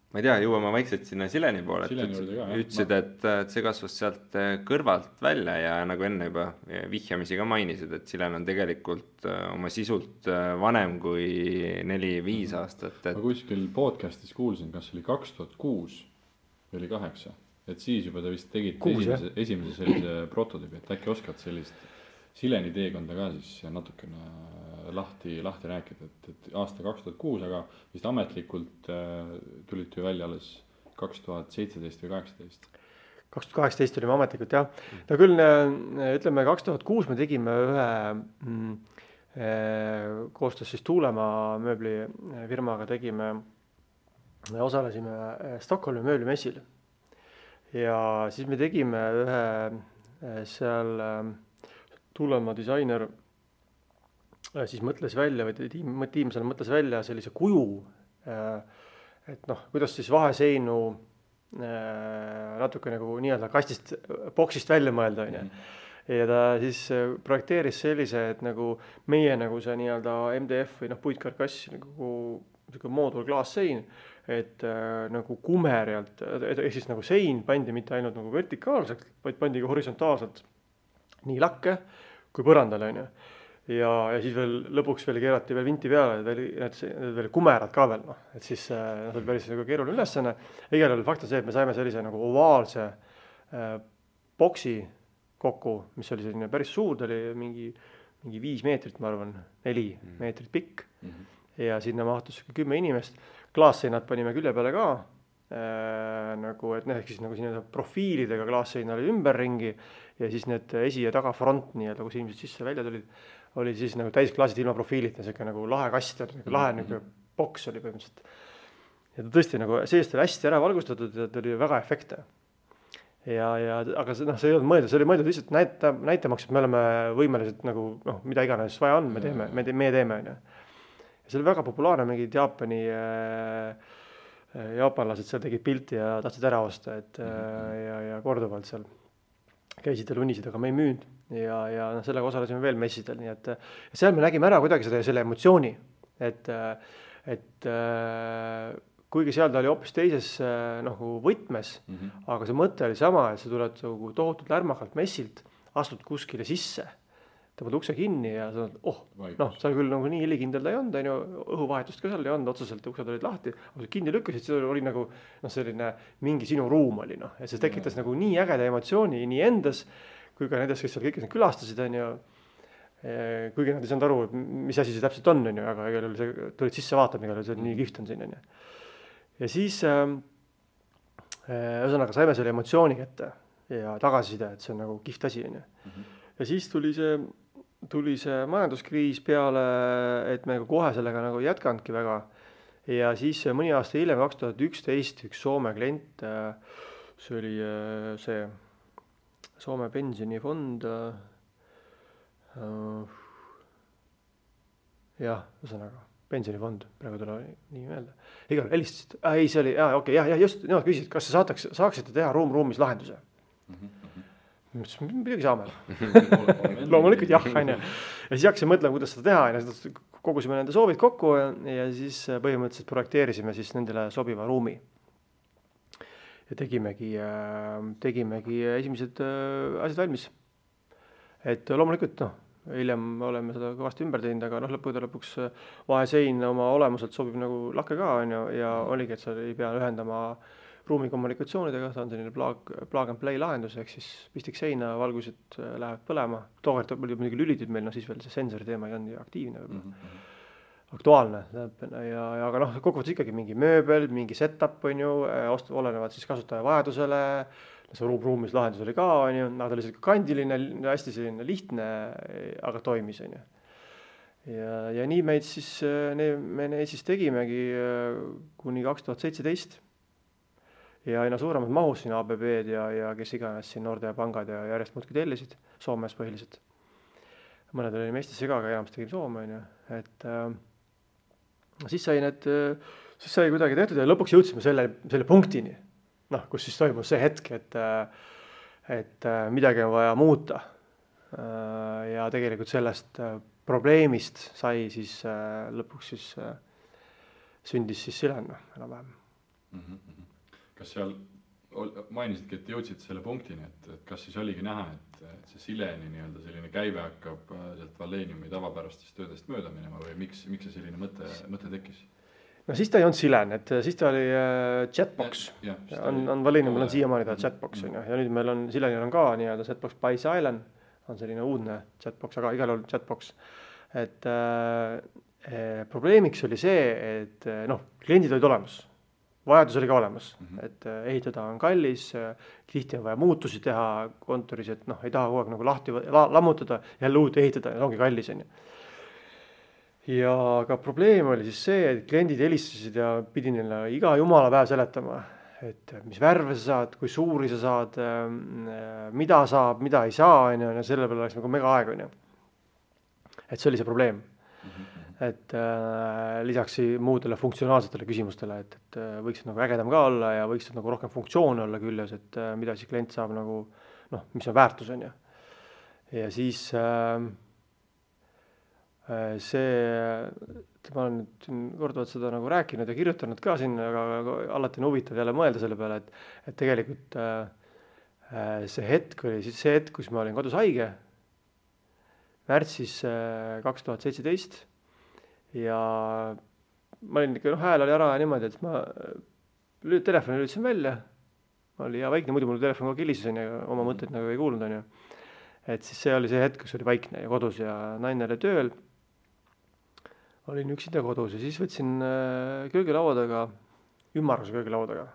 Ma ei tea, jõuame vaikselt sinna Sileni poole, ütlesid, et see kasvas sealt kõrvalt välja ja nagu enne juba vihjamisi ka mainisid, et Silen on tegelikult oma sisult vanem kui 4-5 aastat. Ma kuskil podcastis kuulsin, kas oli 2006 või oli 2008, et siis juba te vist tegite esimese sellise prototüübi, et äkki oskad sellist Sileni teekonda ka siis natukene lahti rääkida, et aasta 2006, aga vist ametlikult tulite ju välja alles 2017 või 2018. 2018 olime ametlikult, jah. No küll, ütleme, 2006 me tegime ühe koostöös siis Tuulemaa mööblifirmaga osalesime Stockholmi mööblimessil. Ja siis me tegime ühe seal Tuulemaa disainer siis mõtles välja, või tiim seal mõtles välja sellise kuju, et noh, kuidas siis vaheseinu natuke nagu nii-öelda kastist, boksist välja mõelda, on ju. Ja ta siis projekteeris sellise, et nagu meie nagu see nii-öelda MDF või puitkarkass, nagu moodul klaassein, et nagu kumerjalt, ehk siis nagu sein pandi mitte ainult nagu vertikaalselt, vaid pandi ka horisontaalselt nii lakke kui põrandale, on ju. Ja siis veel lõpuks veel keerati veel vinti peale, need veel kumerad ka veel, et siis see oli päris nagu keeruline ülesanne. Igal juhul fakt on see, et me saime sellise nagu ovaalse boksi kokku, mis oli selline päris suur, ta oli mingi 5 meetrit, ma arvan, 4 meetrit pikk. Ja sinna mahtus 10 inimest. Klaasseinad panime külje peale ka, nagu, et ehk siis nagu siin profiilidega klaasseina oli ümberringi ja siis need esi- ja tagafront nii-öelda, kus inimesed sisse välja tulid, oli siis nagu täisklaasid ilma profiilita, selline nagu lahe kast, lahe nagu boks oli põhimõtteliselt. Ja ta tõesti nagu seest oli hästi ära valgustatud ja ta oli väga efektne. Aga see ei olnud mõeldud, see oli mõeldud lihtsalt näitamaks, et me oleme võimelised nagu, mida iganes vaja on, me teeme. Ja see oli väga populaarne, mingid jaapanlased seal tegid pilti ja tahtsid ära osta, ja korduvalt seal käisid ja lunisid, aga me ei müünud ja sellega osalesime veel messidel, nii et seal me nägime ära kuidagi selle emotsiooni, et kuigi seal ta oli hoopis teises nagu võtmes, aga see mõte oli sama, et sa tuled tohutult lärmakalt messilt, astud kuskile sisse, tõmbad ukse kinni ja sa seal küll nagu nii helikindel ta ei olnud, õhuvahetust ka seal ei olnud, otseselt uksed olid lahti, aga sa kinni lükkasid, see oli nagu selline mingi sinu ruum oli, ja see tekitas nagu nii ägeda emotsiooni nii endas, kui ka nendes, kes seal kõik külastasid, kuigi nad ei saanud aru, mis asi see täpselt on, aga tulid sisse vaatama, see nii kihvt on siin. Ja siis ühesõnaga saime selle emotsiooni kätte ja tagasiside, et see on nagu kihvt asi. Ja siis tuli see majanduskriis peale, et me kohe sellega nagu jätkanudki väga. Ja siis mõni aasta hiljem, 2011, üks Soome klient, see oli see Soome pensionifond, ühesõnaga, pensionifond, praegu tule nii meelde. Igal helistasid, see oli, just, nemad küsisid, kas saaksite teha ruumis lahenduse. Midagi saame. Loomulikult jah, on ju. Ja siis hakkasin mõtlema, kuidas seda teha, kogusime nende soovid kokku ja siis põhimõtteliselt projekteerisime siis nendele sobiva ruumi. Ja tegimegi esimesed asjad valmis. Et loomulikult, hiljem oleme seda kõvasti ümber teinud, aga lõpuks vahesein oma olemuselt sobib nagu lakke ka, on ju, ja oligi, et sa ei pea ühendama ruumi kommunikatsioonidega, ta on selline plug and play lahendus, ehk siis pistik seina, valgused lähevad põlema. Tookord oli muidugi lülitid meil, siis veel see sensori teema ei olnud nii aktiivne, aktuaalne. Aga kokkuvõttes ikkagi mingi mööbel, mingi setup, on ju, olenevad siis kasutaja vajadusele, see ruumis lahendus oli ka, on ju, ta oli selline kandiline, hästi selline lihtne, aga toimis, on ju. Ja nii me siis tegimegi kuni 2017. ja aina suuremad mahus siin ABB-d ja kes iganes siin Nordea pangad ja järjest muudki tellisid, Soomes põhiliselt. Mõned olime Eestisse ka, aga enamasti tegime Soome, on ju. Et siis sai kuidagi tehtud ja lõpuks jõudsime selle punktini, noh, kus siis toimus see hetk, et midagi on vaja muuta. Ja tegelikult sellest probleemist sai siis lõpuks siis sündis siis Silen enam-vähem. Kas seal mainisidki, et jõudsid selle punktini, et kas siis oligi näha, et see Sileni nii-öelda selline käive hakkab sealt Walleniumi tavapärastest töödest mööda minema või miks see selline mõte tekkis? No siis ta ei olnud Silen, et siis ta oli Jetbox. On Walleniumil on siiamaani ta Jetbox on ju, ja nüüd meil on Silenil on ka nii-öelda Jetbox by Silent, on selline uudne Jetbox, aga igal juhul Jetbox. Et probleemiks oli see, et kliendid olid olemas, vajadus oli ka olemas, et ehitada on kallis, tihti on vaja muutusi teha kontoris, et ei taha kogu aeg nagu lahti lammutada, jälle uut ehitada, ja ongi kallis on ju. Ja ka probleem oli siis see, et kliendid helistasid ja pidi neile iga jumala päev seletama, et mis värve sa saad, kui suuri sa saad, mida saab, mida ei saa, ja selle peale oleks nagu mega aeg on ju. Et see oli see probleem. Et lisaks muudele funktsionaalsetele küsimustele, et võiksid nagu ägedam ka olla ja võiksid nagu rohkem funktsioone olla küljes, et mida siis klient saab nagu, mis on väärtus on ju. Ja siis ma olen nüüd korduvalt seda nagu rääkinud ja kirjutanud ka siin, aga alati on huvitav jälle mõelda selle peale, et tegelikult see hetk oli siis see hetk, kus ma olin kodus haige, märtsis 2017 ja ma olin ikka, hääl oli ära niimoodi, et ma telefoni lülitasin välja, ma oli hea vaikne, muidu mul telefon kogu kilises ja oma mõtteid nagu ei kuulnud on ju. Et siis see oli see hetk, kus oli vaikne ja kodus ja naine oli tööl, olin üksinda kodus ja siis võtsin köögilaua taga, ümmarguse köögilaua taga,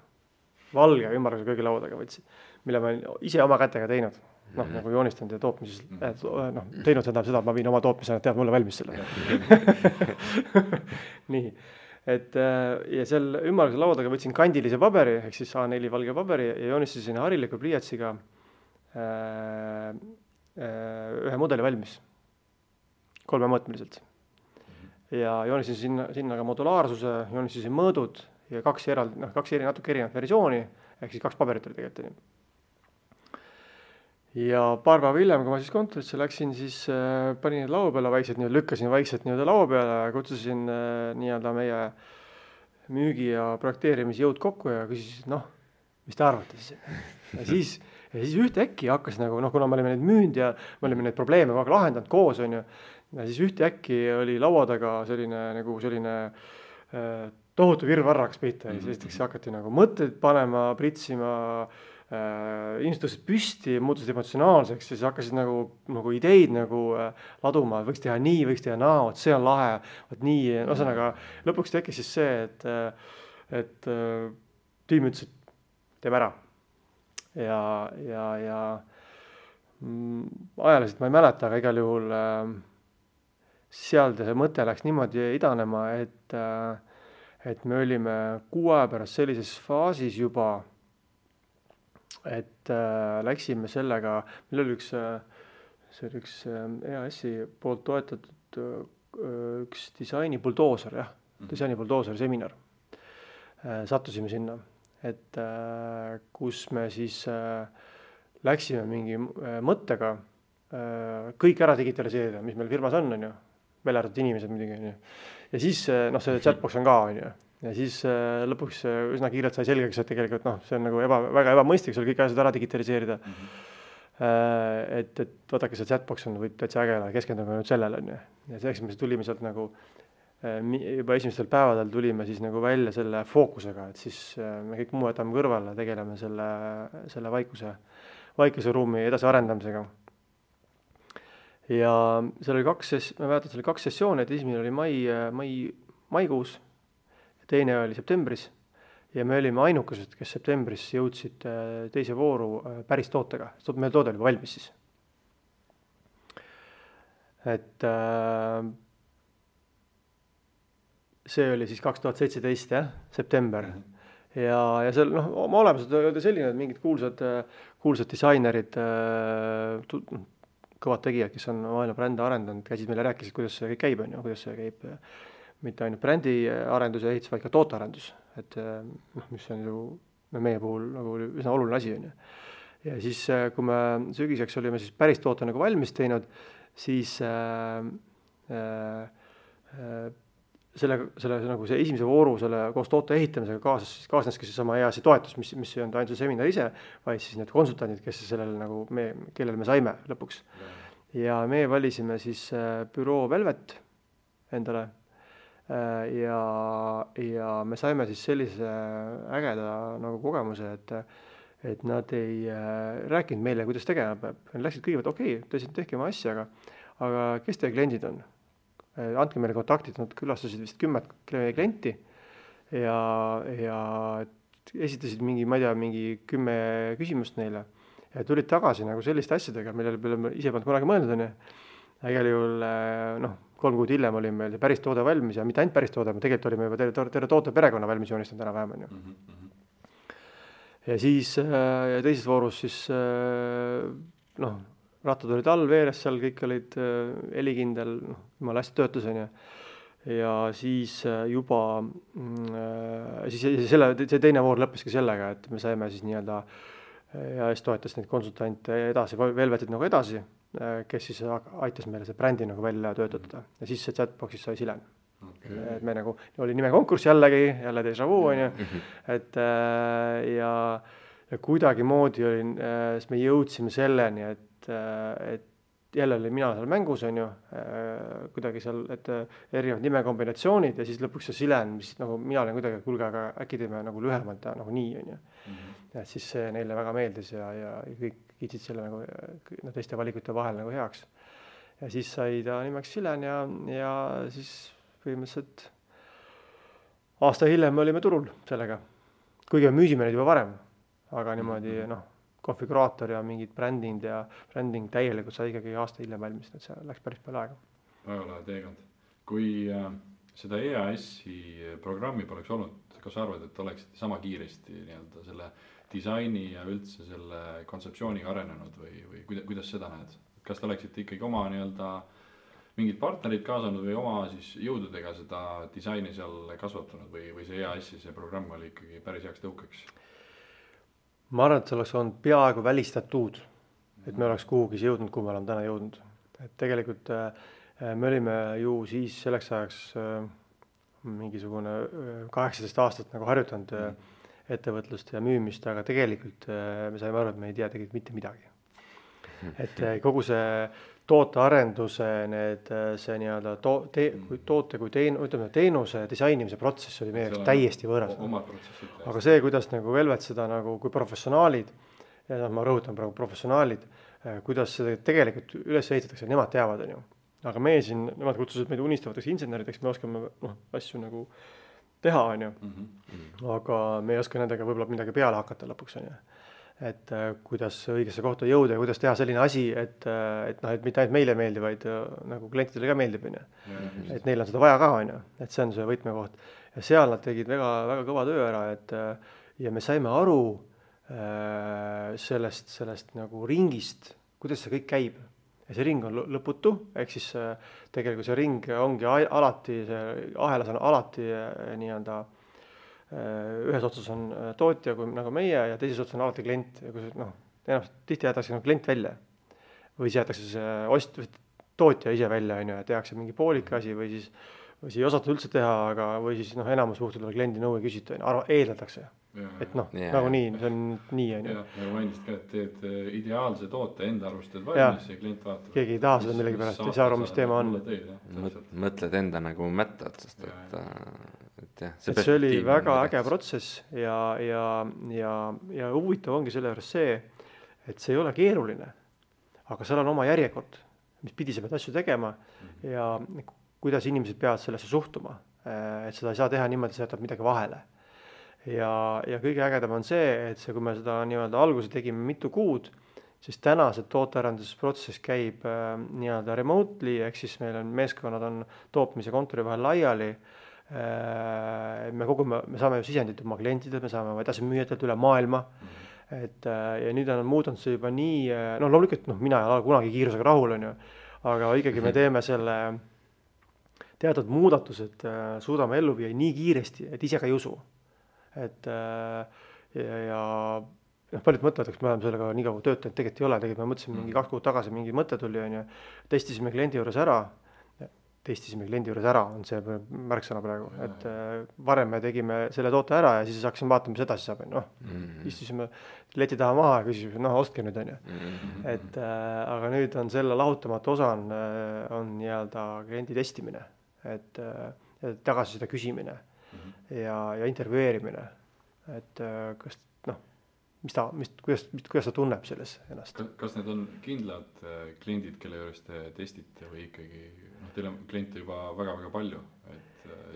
valge ümmarguse köögilaua taga võtsin, mille ma ise oma kätega teinud. Nagu joonistanud ja tootmises, teinud seda, et ma viin oma tootmise, tead mulle valmis selle. Nii, et ja seal ümmarguse laua taga võtsin kandilise paberi, ehk siis A4 valge paberi ja joonistasin hariliku pliiatsiga ühe mudeli valmis, 3-mõõtmeliselt. Ja joonistasin sinna ka modulaarsuse, joonistasin mõõdud ja kaks natuke erinevat versiooni, ehk siis 2 paberit oli tegelikult. Ja paar päeva hiljem, kui ma siis kontorisse läksin, siis panin need laua peale vaikselt, lükkasin vaikselt laua peale ja kutsusin nii-öelda meie müügi- ja projekteerimisjõud kokku ja küsisin, mis te arvate siis? Ja siis ühtäkki hakkas nagu, kuna me olime neid müünud ja me olime neid probleeme kogu aeg lahendanud koos, on ju, ja siis ühtäkki oli laua taga selline tohutu virvarr hakkas pihta ja siis hakati nagu mõtteid panema, pritsima, inimesed tõusid püsti, muutusid emotsionaalseks ja siis hakkasid nagu ideid laduma, võiks teha nii, võiks teha naa, see on lahe, nii, ühesõnaga lõpuks tekkis siis see, et tiim ütles, et teeme ära. Ja ajaliselt ma ei mäleta, aga igal juhul seal see mõte läks niimoodi idanema, et me olime 6 aja pärast sellises faasis juba, et läksime sellega, meil oli üks EAS-i poolt toetatud üks disaini buldooser, disaini buldooser seminar. Sattusime sinna, et kus me siis läksime mingi mõttega kõik ära digitaliseerida, mis meil firmas on ju, välja arvatud inimesed muidugi on ju. Ja siis see chatbox on ka on ju. Ja siis lõpuks üsna kiirelt sai selgeks, et tegelikult see on nagu väga ebamõistlik, sul kõik asjad ära digitaliseerida. Et vaadake, see chatbox on täitsa ägele, keskendume nüüd sellele on ju. Ja selleks me tulime sealt nagu juba esimestel päevadel tulime siis nagu välja selle fookusega, et siis me kõik muu jätame kõrvale, tegeleme selle vaikuse ruumi edasi arendamisega. Ja seal oli ma mäletan, seal oli 2 sessiooni, et esimene oli maikuus, teine oli septembris ja me olime ainukesed, kes septembris jõudsid teise vooru päris tootega. Meil toode oli valmis siis. Et see oli siis 2017, september. ja seal oma olemuselt oli selline, et mingid kuulsad disainerid, kõvad tegijad, kes on maailma brände arendanud, käisid meile rääkisid, kuidas see kõik käib, kuidas see käib mitte ainult brändi arendus ja ehitus, vaid ka tootearendus, et mis on ju meie puhul nagu üsna oluline asi, ja siis, kui me sügiseks olime siis päris toote nagu valmis teinud, siis selle nagu see esimese vooru selle koos toote ehitamisega kaasneski seesama EAS-i toetus, mis ei olnud ainult see seminar ise, vaid siis need konsultandid, kes sellele nagu kellele me saime lõpuks. Ja me valisime siis büroo Velvet endale ja me saime siis sellise ägeda nagu kogemuse, et nad ei rääkinud meile, kuidas tegema peab. Nad läksid kõigepealt, okei, tehke oma asja, aga kes teie kliendid on? Andke meile kontaktid, nad külastasid vist 10 klienti ja esitasid mingi 10 küsimust neile ja tulid tagasi nagu selliste asjadega, millele me ise polnud kunagi mõeldud. Igal juhul 3 kuud hiljem oli meil päris toode valmis ja mitte ainult päris toode, tegelikult olime juba terve toote perekonna valmis joonistanud enam-vähem. Ja siis teises voorus siis rattad olid all veeres seal, kõik olid helikindel, jumala hästi töötas, ja siis juba see teine voor lõppeski sellega, et me saime siis nii-öelda EAS toetas neid konsultante edasi, Velvetit nagu edasi, kes siis aitas meile see brändi nagu välja töötada ja siis see chatboxis sai Silen. Et me nagu oli nime konkurss jälle déjà vu, et ja kuidagi moodi oli, siis me jõudsime selleni, et jälle oli mina seal mängus, kuidagi seal, et erinevad nimekombinatsioonid ja siis lõpuks see Silen, mis nagu mina olen kuidagi, kuulge, aga äkki teeme nagu lühemalt nagu nii, et siis see neile väga meeldis ja kõik kiitsid selle nagu teiste valikute vahel nagu heaks. Ja siis sai ta nimeks Silen ja siis põhimõtteliselt aasta hiljem olime turul sellega. Kuigi me müüsime neid juba varem, aga niimoodi konfiguraator ja mingid bränding täielikult sai ikkagi aasta hiljem valmis, et see läks päris palju aega. Väga lahe teekond. Kui seda EAS-i programmi poleks olnud, kas arvad, et oleksid sama kiiresti nii-öelda selle disaini ja üldse selle kontseptsiooniga arenenud või kuidas seda näed? Kas te oleksite ikkagi oma nii-öelda mingid partnerid kaasanud või oma siis jõududega seda disaini seal kasvatanud või see EAS-i see programm oli ikkagi päris heaks tõukeks? Ma arvan, et see oleks olnud peaaegu välistatud, et me oleks kuhugi jõudnud, kuhu me oleme täna jõudnud. Et tegelikult me olime ju siis selleks ajaks mingisugune 18 aastat nagu harjutanud ettevõtlust ja müümist, aga tegelikult me saime aru, et me ei tea tegelikult mitte midagi. Et kogu see tootearenduse, see nii-öelda toote kui teenuse disainimise protsess oli meie täiesti võõras. Aga see, kuidas nagu Velvet seda nagu kui professionaalid, ja ma rõhutan praegu professionaalid, kuidas seda tegelikult üles ehitatakse, nemad teavad. Aga meie siin, nemad kutsusid meid unistavateks insenerideks, me oskame asju nagu teha, aga me ei oska nendega võib-olla midagi peale hakata lõpuks. Et kuidas õigesse kohta jõuda ja kuidas teha selline asi, et mitte ainult meile meeldib, vaid nagu klientidele ka meeldib. Et neil on seda vaja ka, et see on see võtmekoht. Ja seal nad tegid väga, väga kõva töö ära, ja me saime aru sellest nagu ringist, kuidas see kõik käib. Ja see ring on lõputu, ehk siis tegelikult see ring ongi alati, see ahelas on alati nii-öelda ühes otsas on tootja nagu meie ja teises otsas on alati klient. Tihti jäetakse klient välja või siis jäetakse see tootja ise välja, ja tehakse mingi poolik asi või siis ei osata üldse teha, või siis enamus juhtudel kliendi nõu ei küsita, eeldatakse. Et nagu nii, see on nii. Ja mainisid ka, et teed ideaalse toote enda arvustad valmis ja klient vaatab. Keegi ei taha seda millegi pärast, ei saa aru, mis teema on. Mõtled enda nagu mättad, sest et see oli väga äge protsess ja huvitav ongi selle juures see, et see ei ole keeruline, aga seal on oma järjekord, mis pidi sa pead asju tegema ja kuidas inimesed peavad sellesse suhtuma, et seda ei saa teha niimoodi, et sa jätad midagi vahele. Ja kõige ägedam on see, et kui me seda nii-öelda alguse tegime mitu kuud, siis täna see tootearendusprotsess käib nii-öelda remotely, ehk siis meil on meeskonnad on tootmise kontori vahel laiali, Me saame ju sisendit oma klientidelt, me saame oma edasimüüjatelt üle maailma. Et ja nüüd on muutunud see juba nii, loomulikult mina ei ole kunagi kiirusega rahul, on ju, aga ikkagi me teeme selle teatud muudatused, suudame ellu viia nii kiiresti, et ise ka ei usu. Et ja paljud mõtlevad, et me oleme sellega nii kaua töötanud, tegelikult ei ole, tegelikult me mõtlesime mingi 2 kuud tagasi, mingi mõte tuli, on ju, testisime kliendi juures ära, on see märksõna praegu, et varem me tegime selle toote ära ja siis hakkasime vaatama, mis edasi saab, istusime leti taha maha ja küsisime, ostke nüüd, on ju. Et aga nüüd on selle lahutamatu osa on nii-öelda kliendi testimine, et tagasiside küsimine ja intervjueerimine, et kas kuidas ta tunneb selles ennast. Kas need on kindlad kliendid, kelle juures te testite või ikkagi, teil on kliente juba väga-väga palju?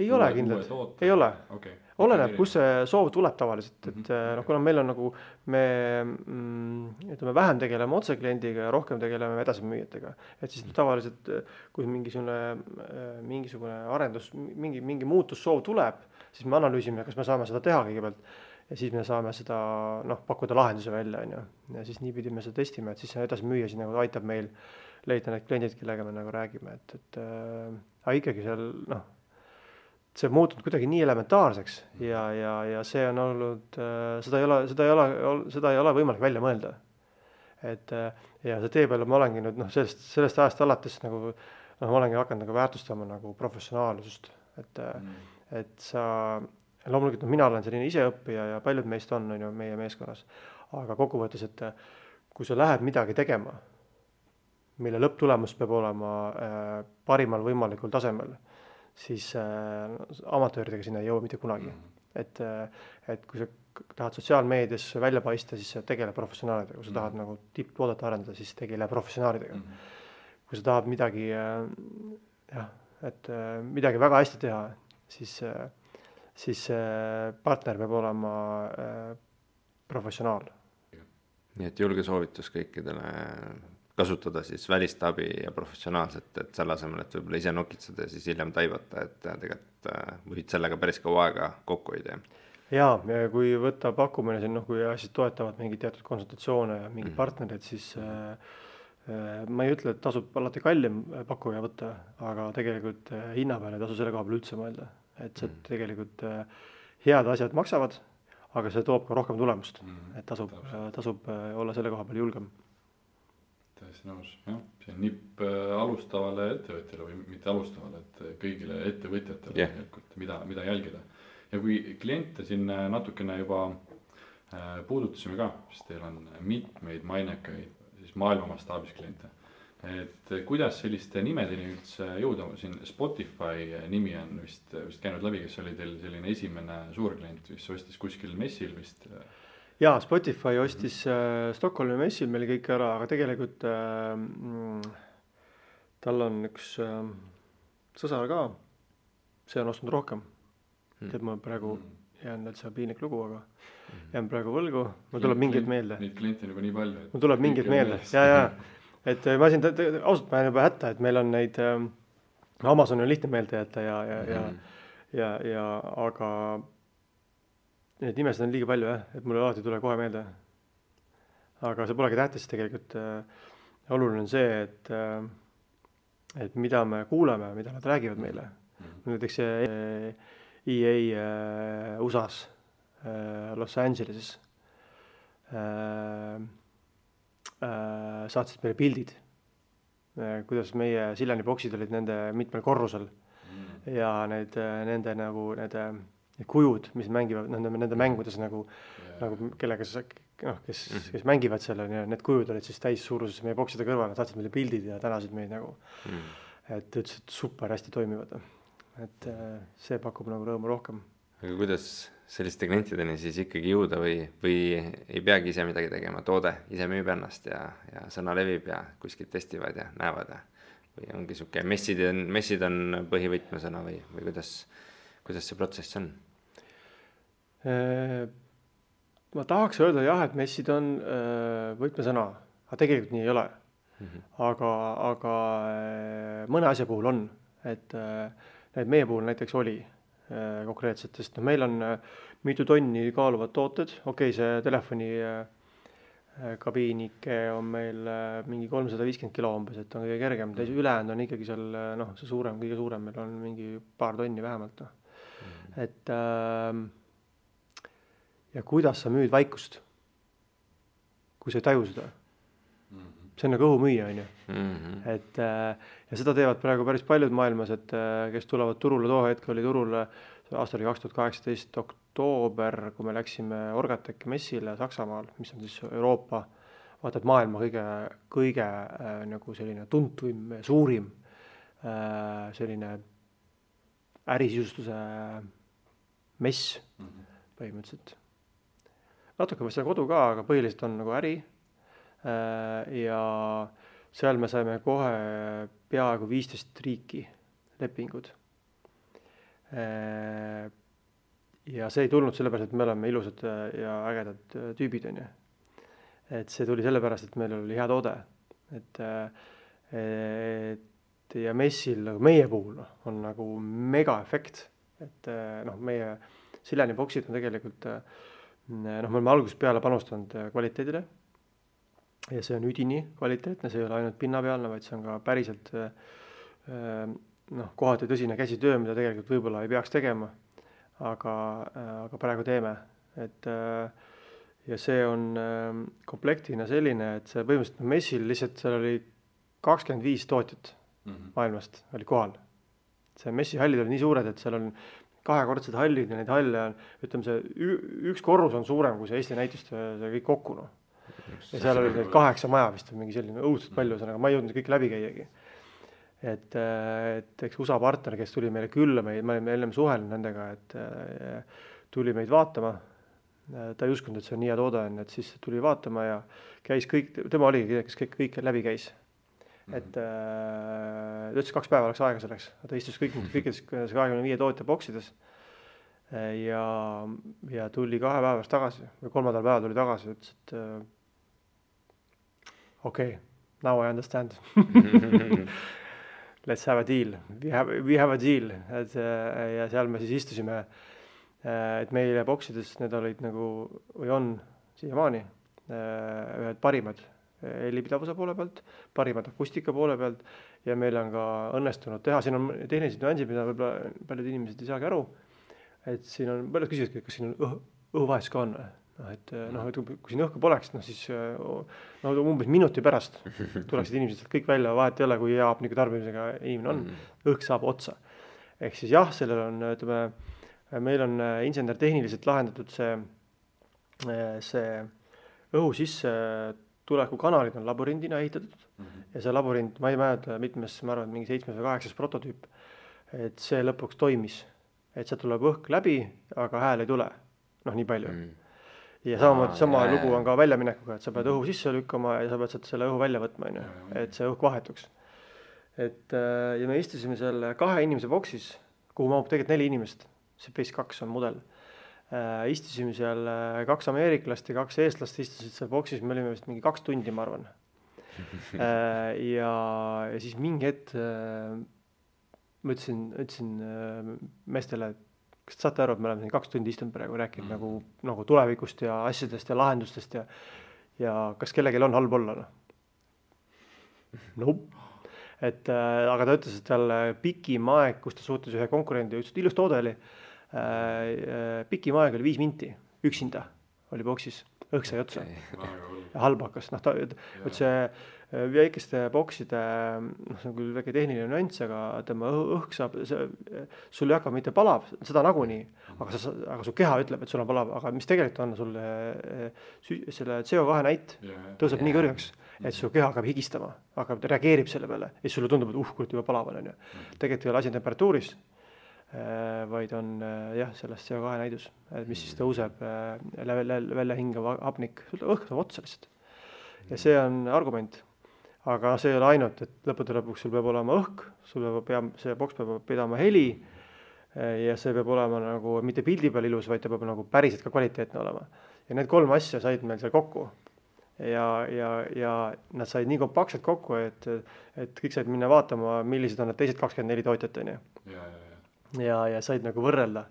Ei ole kindlad, ei ole. Okay. Oleneb, kus see soov tuleb tavaliselt, et kuna meil on nagu, me vähem tegeleme otse kliendiga ja rohkem tegeleme edasimüüjatega, et siis tavaliselt, kui mingisugune arendus, mingi muutussoov tuleb, siis me analüüsime, kas me saame seda teha kõigepealt ja siis me saame seda pakkuda lahenduse välja, on ju. Ja siis niipidi me seda testime, et siis see edasimüüja siis nagu aitab meil leida need kliendid, kellega me nagu räägime, aga ikkagi seal, see muutunud kuidagi nii elementaarseks ja see on olnud, seda ei ole võimalik välja mõelda. Et ja see tee peale ma olengi nüüd, sellest ajast alates nagu, ma olengi hakanud nagu väärtustama nagu professionaalsust, et sa loomulikult mina olen selline iseõppija ja paljud meist on ju meie meeskonnas, aga kokkuvõttes, et kui sa lähed midagi tegema, mille lõpptulemus peab olema parimal võimalikul tasemel, siis amatööridega sinna ei jõua mitte kunagi. Et kui sa tahad sotsiaalmeedias välja paista, siis tegele professionaalidega, kui sa tahad nagu tipptoodet arendada, siis tegele professionaalidega. Kui sa tahad midagi väga hästi teha, siis partner peab olema professionaal. Nii et julge soovitus kõikidele kasutada siis välist abi ja professionaalset, et selle asemel, et võib-olla ise nokitseda ja siis hiljem taibata, et tegelikult võid sellega päris kaua aega kokku hoida. Ja kui võtta pakkumine, kui asjad toetavad mingid teatud konsultatsioone ja mingid partnerid, siis ma ei ütle, et tasub alati kallim pakkuja võtta, aga tegelikult hinna peale ei tasu selle koha peal üldse mõelda. Et see tegelikult head asjad maksavad, aga see toob ka rohkem tulemust, et tasub olla selle koha peal julgem. Täiesti nõus, jah. See on nipp alustavale ettevõtjale või mitte alustavale, et kõigile ettevõtjatele mida jälgida. Ja kui kliente siin natukene juba puudutasime ka, siis teil on mitmeid mainekaid siis maailma mastaabis kliente. Et kuidas selliste nimedeni üldse jõuda, siin Spotify nimi on vist käinud läbi, kes oli teil selline esimene suurklient, mis ostis kuskil messil vist? Jaa, Spotify ostis Stockholmi messil meil kõik ära, aga tegelikult tal on üks sõsar ka, see on ostnud rohkem. Tead, ma praegu jään üldse piinlik lugu, aga jään praegu võlgu, mul tuleb mingid meelde. Neid kliente nagu nii palju. Mul tuleb mingid meelde, jaa. Et ma siin ausalt ma olen juba hätta, et meil on neid, Amazon on lihtne meelde jätta aga need nimesid on liiga palju, et mul alati tule kohe meelde. Aga see polegi tähtis tegelikult. Oluline on see, et mida me kuuleme, mida nad räägivad meile. Näiteks EA USAs, Los Angeleses saatsid meile pildid, kuidas meie Sillani boksid olid nende mitmel korrusel ja nende kujud, mis mängivad nende mängudes nagu kellega kes mängivad selle, need kujud olid siis täis suuruses meie bokside kõrval, saatsid meile pildid ja tänasid meid nagu, et ütlesid super hästi toimivad. Et see pakub nagu rõõmu rohkem. Aga kuidas selliste klientideni siis ikkagi jõuda või ei peagi ise midagi tegema, toode ise müüb ennast ja sõna levib ja kuskilt testivad ja näevad või ongi siuke messid on põhivõtmesõna või kuidas see protsess on? Ma tahaks öelda jah, et messid on võtmesõna, aga tegelikult nii ei ole. Aga mõne asja puhul on, et meie puhul näiteks oli, konkreetselt, sest meil on mitu tonni kaaluvad tooted, see telefoni kabiinike on meil mingi 350 kilo umbes, et on kõige kergem, ülejäänud on ikkagi seal see suurem, kõige suurem, meil on mingi paar tonni vähemalt. Et ja kuidas sa müüd vaikust, kui sa ei taju seda? See on nagu õhumüüja, on ju. Et ja seda teevad praegu päris paljud maailmas, et kes tulevad turule, too hetk oli turul aastal 2018 oktoober, kui me läksime Orgateki messile Saksamaal, mis on siis Euroopa, vaata, et maailma kõige nagu selline tuntuim, suurim selline ärisisustuse mess põhimõtteliselt. Natuke vast kodu ka, aga põhiliselt on nagu äri. Ja seal me saime kohe peaaegu 15 riiki lepingud. Ja see ei tulnud sellepärast, et me oleme ilusad ja ägedad tüübid, on ju. Et see tuli sellepärast, et meil oli hea toode. Et ja messil nagu meie puhul on nagu mega efekt. Et meie Sileni boksid on tegelikult, me oleme algusest peale panustanud kvaliteedile. Ja see on üdini kvaliteetne, see ei ole ainult pinnapealne, vaid see on ka päriselt kohati tõsine käsitöö, mida tegelikult võib-olla ei peaks tegema, aga praegu teeme. Et, ja see on komplektina selline, et see põhimõtteliselt messil lihtsalt seal oli 25 tootjat maailmast oli kohal. See messihallid oli nii suured, et seal on kahekordsed hallid ja neid halle on, ütleme see üks korrus on suurem kui see Eesti näitust see kõik kokku. Ja seal oli 8 maja vist mingi selline õudselt palju, aga ma ei jõudnud kõik läbi käiagi. Et eks USA partner, kes tuli meile külla, me olime enne suhelnud nendega, et tuli meid vaatama. Ta ei uskunud, et see on nii hea toode, et siis tuli vaatama ja käis kõik, tema oligi, kes kõik läbi käis. Et ta ütles 2 päeva oleks aega selleks, ta istus kõikides 25 tootja boksides ja tuli 2 päevast tagasi või 3. päeva tuli tagasi, ütles, et now I understand. Let's have a deal. We have a deal. Et, ja seal me siis istusime, et meile boksides need olid nagu, või on siiamaani ühed parimad helipidavuse poole pealt, parimad akustika poole pealt ja meil on ka õnnestunud teha. Siin on tehnilised nüansid, mida võib-olla paljud inimesed ei saagi aru. Et siin on, paljud küsivad, kas siin on õhuvahetus ka on. Et kui siin õhku poleks, siis umbes minuti pärast tuleksid inimesed kõik välja, vahet ei ole, kui hea hapniku tarbimisega inimene on, õhk saab otsa. Ehk siis jah, sellel on, ütleme, meil on insener tehniliselt lahendatud see õhu sisse tuleku kanalid on labürindina ehitatud ja see labürind, ma ei mäleta mitmes, ma arvan, mingi 7 või 8 prototüüp, et see lõpuks toimis, et see tuleb õhk läbi, aga hääl ei tule, nii palju. Ja sama lugu on ka väljaminekuga, et sa pead õhu sisse lükkama ja sa pead selle õhu välja võtma, et see õhk vahetuks. Ja me istusime selle 2 inimese boksis, kuhu mahub tegelikult 4 inimest, see Base 2 on mudel. Istusime seal 2 ameeriklast ja 2 eestlast istusid seal boksis, me olime vist mingi 2 tundi, ma arvan. Ja siis mingi hetk ma ütlesin meestele, kas saate aru, et me oleme siin 2 tundi istunud praegu rääkinud nagu tulevikust ja asjadest ja lahendustest ja kas kellelgi on halb olla? Aga ta ütles, et seal pikim aeg, kus ta suhtes ühe konkurendi, ütles, et ilus toode oli, pikim aeg oli 5 minti, üksinda oli boksis, õhk sai otsa ja halb hakkas. See väikeste bokside, see on küll väike tehniline nüanss, aga tema õhk saab, sul ei hakka mitte palav, seda nagunii, aga su keha ütleb, et sul on palav, aga mis tegelikult on, sul selle CO2 näit tõuseb nii kõrgeks, et su keha hakkab higistama, reageerib selle peale ja sulle tundub, et kurat juba palav on. Tegelikult ei ole asi temperatuuris, vaid on sellest CO2 näidus, mis siis tõuseb välja hingav hapnik, õhk saab otsa lihtsalt. Ja see on argument, aga see ei ole ainult, et lõpuks sul peab olema õhk, see boks peab pidama heli ja see peab olema nagu mitte pildi peal ilus, vaid ta peab nagu päriselt ka kvaliteetne olema. Ja need 3 asja said meil seal kokku ja nad said nii kompaktselt kokku, et kõik said minna vaatama, millised on need teised 24 tootjat. ja said nagu võrrelda.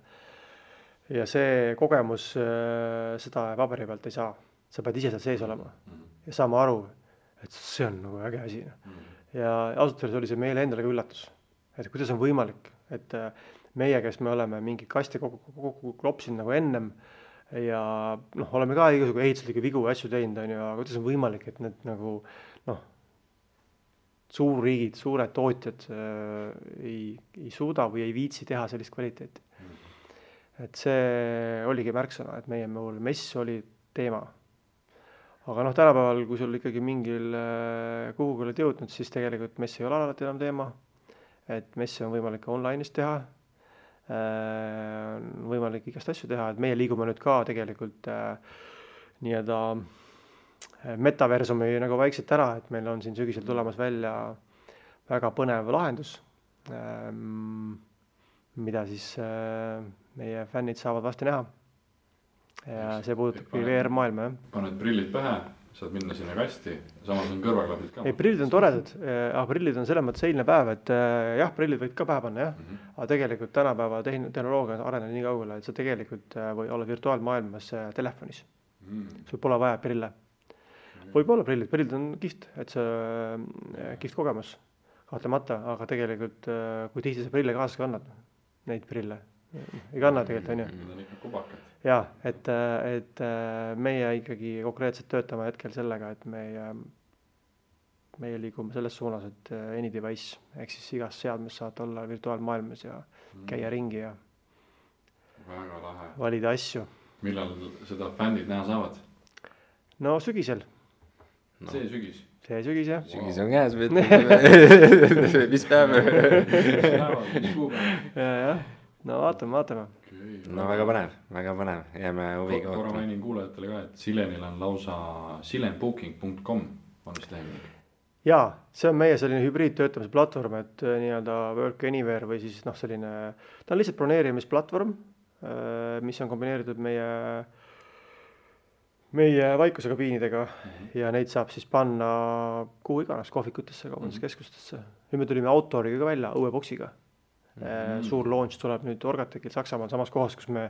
Ja see kogemus, seda paberi pealt ei saa. Sa pead ise seal sees olema ja saama aru, et see on nagu äge asi. Ja ausalt öeldes oli see meile endale ka üllatus, et kuidas on võimalik, et meie, kes me oleme mingi kasti kokku klopsinud nagu ennem ja oleme ka igasugu ehituslikke vigu ja asju teinud, aga kuidas on võimalik, et need nagu suurriigid, suured tootjad ei suuda või ei viitsi teha sellist kvaliteeti. Et see oligi märksõna, et meie mess oli teema. Aga tänapäeval, kui sul ikkagi mingil kuhugi oled jõudnud, siis tegelikult mess ei ole alati enam teema. Et messi on võimalik ka online'is teha, on võimalik igast asju teha, et meie liigume nüüd ka tegelikult nii-öelda metaversumi nagu vaikselt ära, et meil on siin sügisel tulemas välja väga põnev lahendus, mida siis meie fännid saavad vasti näha. Ja see puudutabki VR-maailma. Paned prillid pähe, saad minna sinna kasti, samas on kõrvaklapid ka. Ei, prillid on toredad, prillid on selles mõttes eilne päev, et jah, prillid võid ka pähe panna, jah. Aga tegelikult tänapäeva tehnoloogia on arenenud nii kaugele, et sa tegelikult või olla virtuaalmaailmas telefonis. Sul pole vaja prille. Võib olla prillid on kihvt, et see kihvt kogemus kahtlemata, aga tegelikult kui tihti sa prille kaasas kannad, neid prille ei kanna tegelikult, on ju. Need on ikka kubakad. Jaa, et meie ikkagi konkreetselt töötame hetkel sellega, et meie liigume selles suunas, et any device, ehk siis igas seadmes saad olla virtuaalmaailmas ja käia ringi ja väga lahe. Valida asju. Millal seda fännid näha saavad? No sügisel. See sügis? See sügis, jah. Sügis on käes, mis päev? Mis kuupäev? Jah. No vaatame. No väga põnev, jääme huviga korra mainin kuulajatele ka, et Silenil on lausa silenbooking.com on vist lehekülg. Jaa, see on meie selline hübriidtöötamise platvorm, et nii-öelda work anywhere või siis selline, ta on lihtsalt broneerimisplatvorm, mis on kombineeritud meie vaikusekabiinidega ja neid saab siis panna kuhu iganes kohvikutesse, kaubanduskeskustesse. Nüüd me tulime Autoriga ka välja, uue boksiga. Suur launch tuleb nüüd Orgatekil Saksamaal samas kohas, kus me,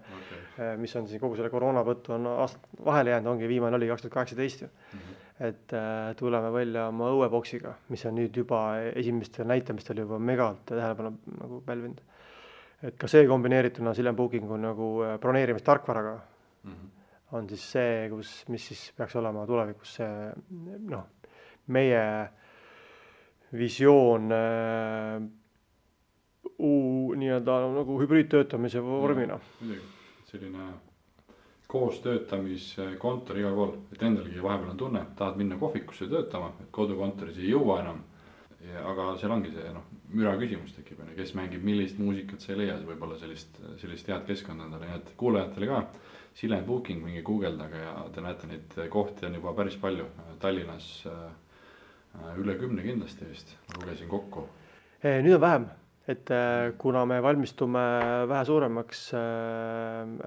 mis on siin kogu selle koroonavõttu on aastat vahele jäänud, ongi viimane oli 2018. Et tuleme välja oma õueboksiga, mis on nüüd juba esimestel näitamistel juba megalt tähelepanu nagu pälvinud. Et ka see kombineerituna Silen Bookingu nagu broneerimistarkvaraga on siis see, mis siis peaks olema tulevikus see meie visioon nii-öelda nagu hübriidtöötamise vormina. Midagi, selline koostöötamiskontor igal pool, et endalgi vahepeal on tunne, tahad minna kohvikusse töötama, et kodukontoris ei jõua enam, aga seal ongi see müra küsimus tekib, kes mängib millist muusikat sa ei leia, võib-olla sellist head keskkonda endale, nii et kuulajatele ka Silen Booking mingi guugeldaga ja te näete neid kohti on juba päris palju, Tallinnas üle 10 kindlasti vist, lugesin kokku. Nüüd on vähem. Et kuna me valmistume vähe suuremaks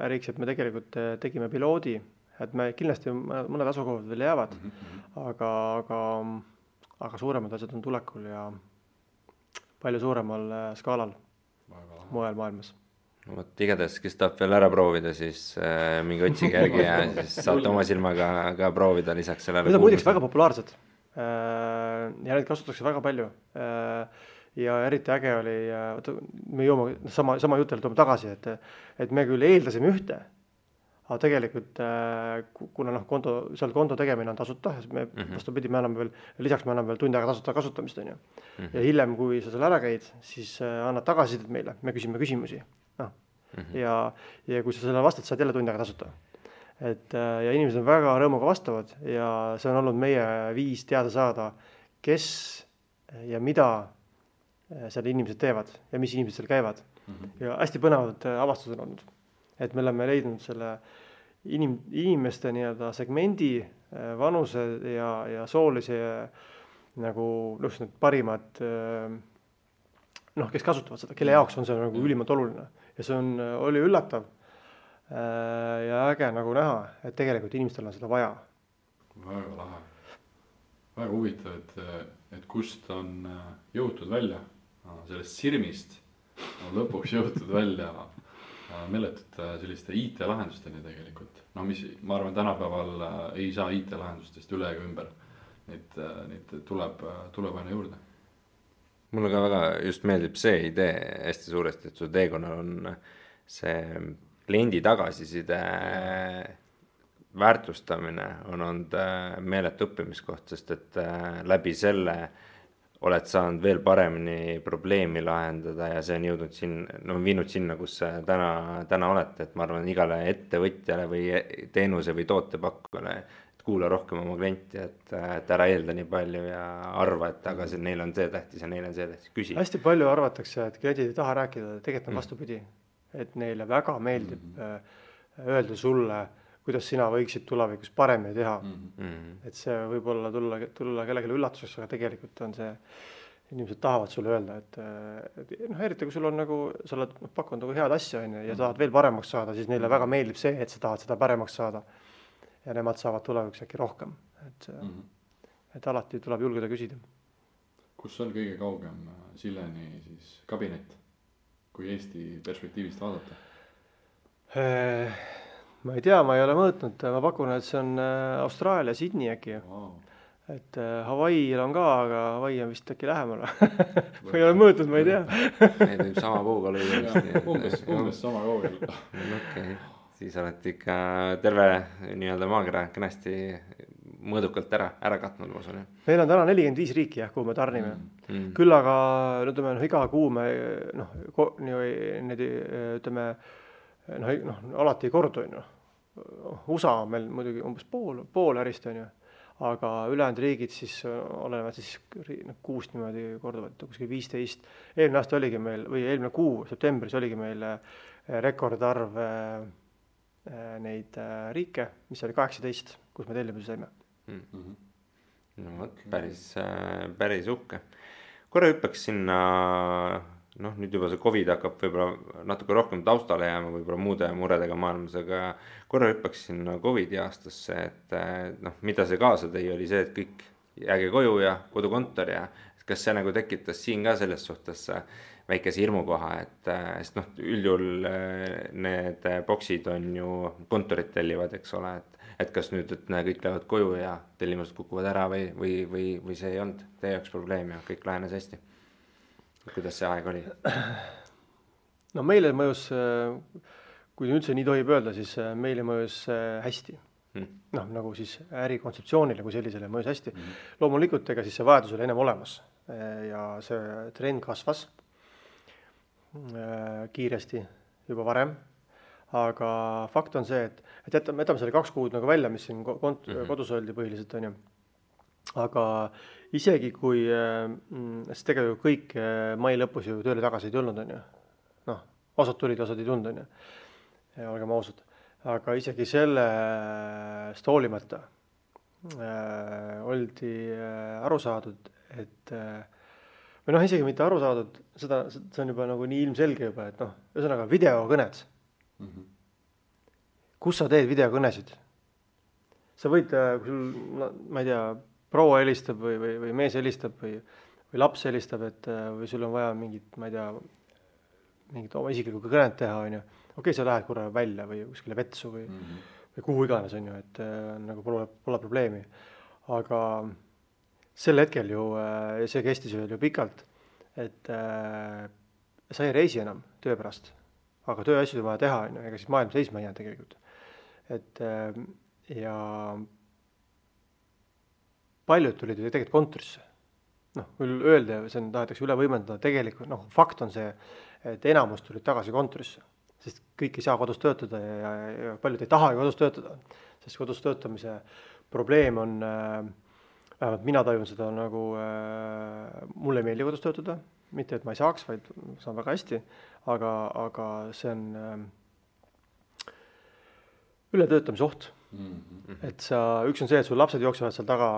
äriks, et me tegelikult tegime piloodi, et me kindlasti mõned asukohad veel jäävad, aga suuremad asjad on tulekul ja palju suuremal skaalal mujal maailmas. Igatahes, kes tahab veel ära proovida, siis mingi otsige järgi ja siis saate oma silmaga ka proovida lisaks sellele. Need on muideks väga populaarsed ja neid kasutatakse väga palju. Ja eriti äge oli, me joome sama jutele toome tagasi, et me küll eeldasime ühte, aga tegelikult kuna seal konto tegemine on tasuta, me vastupidi, lisaks me anname veel tund aega tasuta kasutamist on ju. Ja hiljem, kui sa seal ära käid, siis annad tagasisidet meile, me küsime küsimusi. Ja kui sa selle vastad, saad jälle tund aega tasuta. Ja inimesed on väga rõõmuga vastavad ja see on olnud meie viis teada saada, kes ja mida seal inimesed teevad ja mis inimesed seal käivad. Ja hästi põnevad avastused on olnud. Et me oleme leidnud selle inimeste nii-öelda segmendi, vanuse ja soolise nagu need parimad, kes kasutavad seda, kelle jaoks on see nagu ülimalt oluline. Ja see oli üllatav ja äge nagu näha, et tegelikult inimestel on seda vaja. Väga lahe. Väga huvitav, et kust on jõutud välja sellest sirmist on lõpuks jõutud välja meeletute selliste IT-lahendusteni tegelikult. No mis, ma arvan, tänapäeval ei saa IT-lahendustest üle ega ümber. Neid tuleb aina juurde. Mulle ka väga just meeldib see idee hästi suuresti, et su teekonnal on see kliendi tagasiside väärtustamine on olnud meeletu õppimiskoht, sest et läbi selle oled saanud veel paremini probleemi lahendada ja see on jõudnud viinud sinna, kus täna olete, et ma arvan, igale ettevõtjale või teenuse või tootepakkujale, et kuula rohkem oma klienti, et ära eelda nii palju ja arva, et aga neil on see tähtis ja neil on see tähtis, küsi. Hästi palju arvatakse, et kliendid ei taha rääkida, tegelikult on vastupidi, et neile väga meeldib öelda sulle, kuidas sina võiksid tulevikus paremini teha. Et see võib olla tulla kellelegi üllatuseks, aga tegelikult on see, inimesed tahavad sulle öelda, et eriti kui sul on nagu, sa oled pakkunud nagu head asja ja tahad veel paremaks saada, siis neile väga meeldib see, et sa tahad seda paremaks saada ja nemad saavad tulevikus äkki rohkem. Et alati tuleb julgeda küsida. Kus on kõige kaugem Silleni siis kabinet, kui Eesti perspektiivist vaadata? Ma ei tea, ma ei ole mõõtnud, ma pakun, et see on Austraalia, Sydney äkki. Wow. Et Hawaii'l on ka, aga Hawaii on vist äkki lähemal. Ma ei ole mõõtnud, ma ei tea. Need võib sama puuga lüüa. Umbes sama kaugel. Okay. Siis olete ikka terve nii-öelda maakera kenasti mõõdukalt ära katnud, ma usun. Meil on täna 45 riiki, kuhu me tarnime. Küll aga iga kuu me alati ei kordu, USA on meil muidugi umbes pool ärist, aga ülejäänud riigid siis olevad siis 6 niimoodi korduvad, kuskil 15. Eelmine aasta oligi meil, või eelmine kuu, septembris oligi meil rekordarv neid riike, mis oli 18, kus me tellimusi saime. No päris uhke. Korra hüppaks sinna, nüüd juba see COVID hakkab võib-olla natuke rohkem taustale jääma, võib-olla muude muredega maailmas, aga korra hüppaks sinna COVID aastasse, et mida see kaasa tõi, oli see, et kõik jääge koju ja kodukontor ja kas see nagu tekitas siin ka selles suhtes väikese hirmukoha, sest üldjuhul need boksid on ju kontorid tellivad, eks ole, et kas nüüd, et kõik lähevad koju ja tellimused kukuvad ära või see ei olnud teie jaoks probleem ja kõik lahenes hästi. Kuidas see aeg oli? No meile mõjus, kui üldse nii tohib öelda, siis meile mõjus hästi. Nagu siis ärikontseptsioonile kui sellisele mõjus hästi. Loomulikult ega siis see vajadus oli ennem olemas ja see trend kasvas kiiresti juba varem. Aga fakt on see, et jätame selle 2 kuud nagu välja, mis siin kodus oldi põhiliselt on ju. Aga isegi kui sest tegelikult kõik mai lõpus ju tööle tagasi ei tulnud on ju. Osad tulid, osad ei tulnud on ju. Ja olgem ausad. Aga isegi sellest hoolimata oldi aru saadud, et või isegi mitte aru saadud, see on juba nagu nii ilmselge juba, et ühesõnaga videokõned. Kus sa teed videokõnesid? Sa võid, kui sul, ma ei tea, proua helistab või mees helistab või laps helistab, või sul on vaja mingit, ma ei tea, mingit oma isiklikku kõnet teha, on ju. Okei, sa lähed korra välja või kuskile vetsu või kuhu iganes, on ju, et nagu pole probleemi. Aga sel hetkel ju, see kestis ju pikalt, et sa ei reisi enam töö pärast, aga tööasjad on vaja teha, on ju, ega siis maailm seisma ei jää tegelikult. Et ja paljud tulid ju tegelikult kontorisse. Küll öelda, see tahetakse üle võimendada, tegelikult fakt on see, et enamus tulid tagasi kontorisse, sest kõik ei saa kodus töötada ja paljud ei taha kodus töötada, sest kodus töötamise probleem on, vähemalt mina tajun seda nagu, mulle ei meeldi kodus töötada, mitte et ma ei saaks, vaid saan väga hästi, aga see on ületöötamise oht. Et üks on see, et sul lapsed jooksevad seal taga,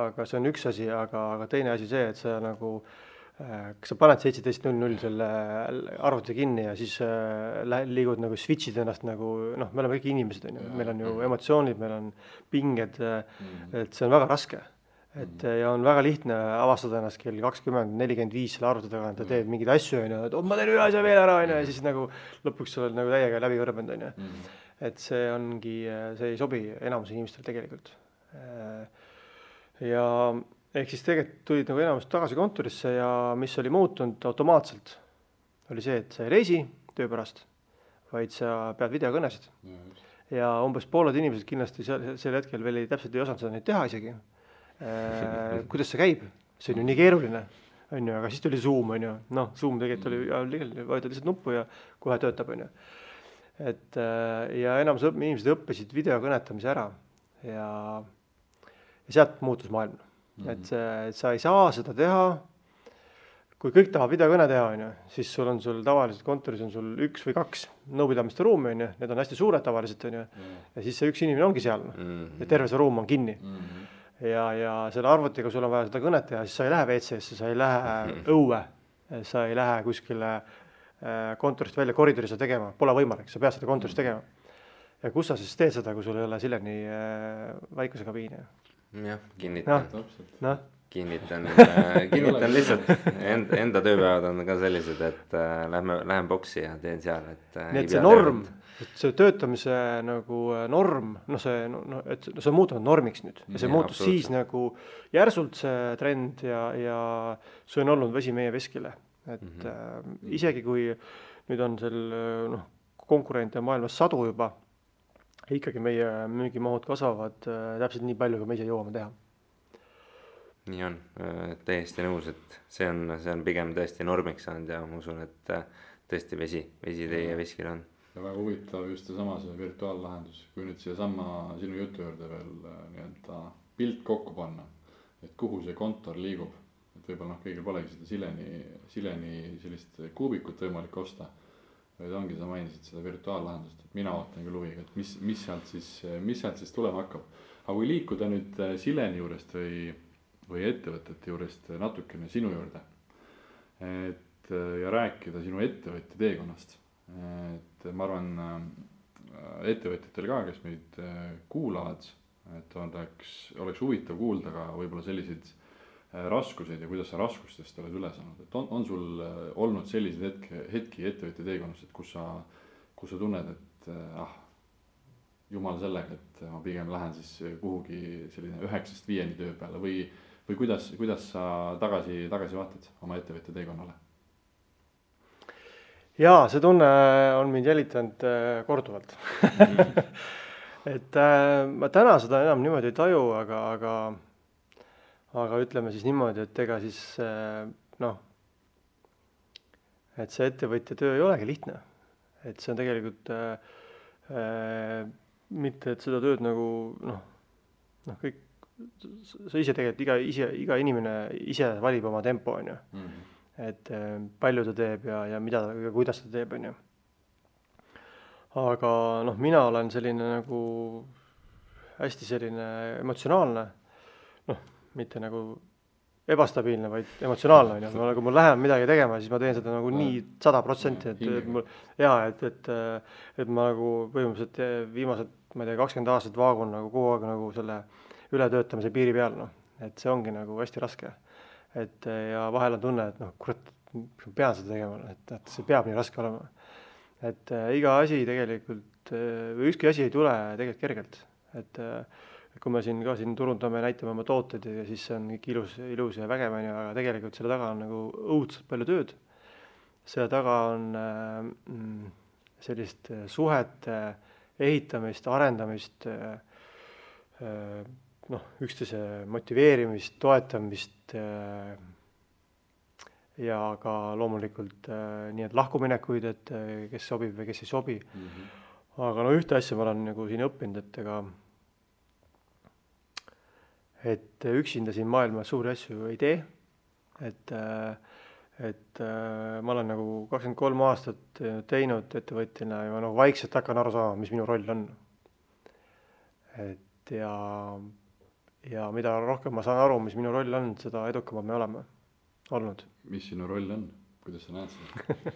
aga see on üks asi, aga teine asi see, et sa nagu, kas sa paned 17.00 selle arvuti kinni ja siis liigud nagu switchid ennast nagu, me oleme kõik inimesed, meil on ju emotsioonid, meil on pinged, et see on väga raske. et ja on väga lihtne avastada ennast kell 20:45 selle arvuti taga, et teed mingeid asju, on ju, et ma teen ühe asja veel ära, on ju, ja siis nagu lõpuks sa oled nagu täiega läbi kõrbenud, on ju. Et see ongi, see ei sobi enamus inimestele tegelikult. Ja ehk siis tegelikult tulid nagu enamus tagasi kontorisse ja mis oli muutunud automaatselt, oli see, et sa ei reisi töö pärast, vaid sa pead videokõnesid. Ja umbes pooled inimesed kindlasti sel hetkel veel täpselt ei osanud seda neid teha isegi. Kuidas see käib? See on ju nii keeruline, on ju, aga siis tuli Zoom, on ju. Noh, Zoom tegelikult oli, vajutad lihtsalt nuppu ja kohe töötab, on ju. Et ja enamus inimesed õppisid videokõnetamise ära ja sealt muutus maailm. Et sa ei saa seda teha, kui kõik tahab videokõne teha, on ju, siis sul tavaliselt kontoris on sul 1 või 2 nõupidamiste ruumi, on ju, need on hästi suured tavaliselt, on ju, ja siis see üks inimene ongi seal, ja terve see ruum on kinni. Ja selle arvutiga sul on vaja seda kõnet teha, siis sa ei lähe WC-sse, sa ei lähe õue, sa ei lähe kuskile kontorist välja koridori seda tegema, pole võimalik, sa pead seda kontoris tegema. Ja kus sa siis teed seda, kui sul ei ole Sileni väikuse kabiini? Jah, kinnitan. Kinnitan lihtsalt, enda tööpäevad on ka sellised, et lähen boksi ja teen seal, et nii et see norm, et see töötamise nagu norm, see on muutunud normiks nüüd ja see muutus siis nagu järsult see trend ja see on olnud vesi meie veskile, et isegi kui nüüd on konkurente maailmas 100 juba, ikkagi meie müügimahud kasvavad täpselt nii palju, kui me ise jõuame teha. Nii on, täiesti nõus, et see on pigem tõesti normiks saanud ja ma usun, et tõesti vesi teie veskil on. Ja väga huvitav just seesama see virtuaallahendus, kui nüüd siia sama sinu jutu juurde veel nii-öelda pilt kokku panna, et kuhu see kontor liigub, et võib-olla kõigil polegi seda Sileni sellist kuubikut võimalik osta, vaid ongi sa mainisid seda virtuaallahendust, et mina ootan küll huviga, et mis sealt siis tulema hakkab. Aga kui liikuda nüüd Sileni juurest või ettevõtete juurest natukene sinu juurde, ja rääkida sinu ettevõtja teekonnast. Et ma arvan ettevõtjatel ka, kes meid kuulavad, et oleks huvitav kuulda ka võib-olla selliseid raskuseid ja kuidas sa raskustest oled üle saanud. Et on sul olnud selliseid hetki ettevõtja teekonnast, et kus sa tunned, et jumal sellega, et ma pigem lähen siis kuhugi selline 9-5 töö peale või kuidas sa tagasi vaatad oma ettevõtja teekonnale? Jaa, see tunne on mind jälitanud korduvalt. Et ma täna seda enam niimoodi ei taju, aga ütleme siis niimoodi, et ega siis et see ettevõtja töö ei olegi lihtne. Et see on tegelikult mitte, et seda tööd nagu kõik sa ise tegelikult iga inimene ise valib oma tempo, on ju. Et palju ta teeb ja mida ja kuidas ta teeb, on ju. Aga mina olen selline nagu hästi selline emotsionaalne, mitte nagu ebastabiilne, vaid emotsionaalne, on ju. Kui mul läheb midagi tegema, siis ma teen seda nagu nii 100%, et ma nagu põhimõtteliselt viimased, ma ei tea, 20 aastat vaagun nagu kogu aeg nagu selle ületöötamise piiri peal, et see ongi nagu hästi raske. Et ja vahel on tunne, et kurat, ma pean seda tegema, et see peab nii raske olema. Et iga asi tegelikult, või ükski asi ei tule tegelikult kergelt. Et kui me siin turundame, näitame oma tooted ja siis see on kõik ilus ja vägev, aga tegelikult selle taga on nagu õudselt palju tööd. Selle taga on sellist suhete ehitamist, arendamist, üksteise motiveerimist, toetamist ja ka loomulikult nii, et lahkuminekuid, et kes sobib või kes ei sobi. Aga ühte asja ma olen nagu siin õppinud, et üksinda siin maailmas suuri asju ei tee. Et ma olen nagu 23 aastat teinud ettevõtjana ja ma nagu vaikselt hakkan aru saama, mis minu roll on. Et ja mida rohkem ma saan aru, mis minu roll on, seda edukamad me oleme olnud. Mis sinu roll on? Kuidas sa näed seda?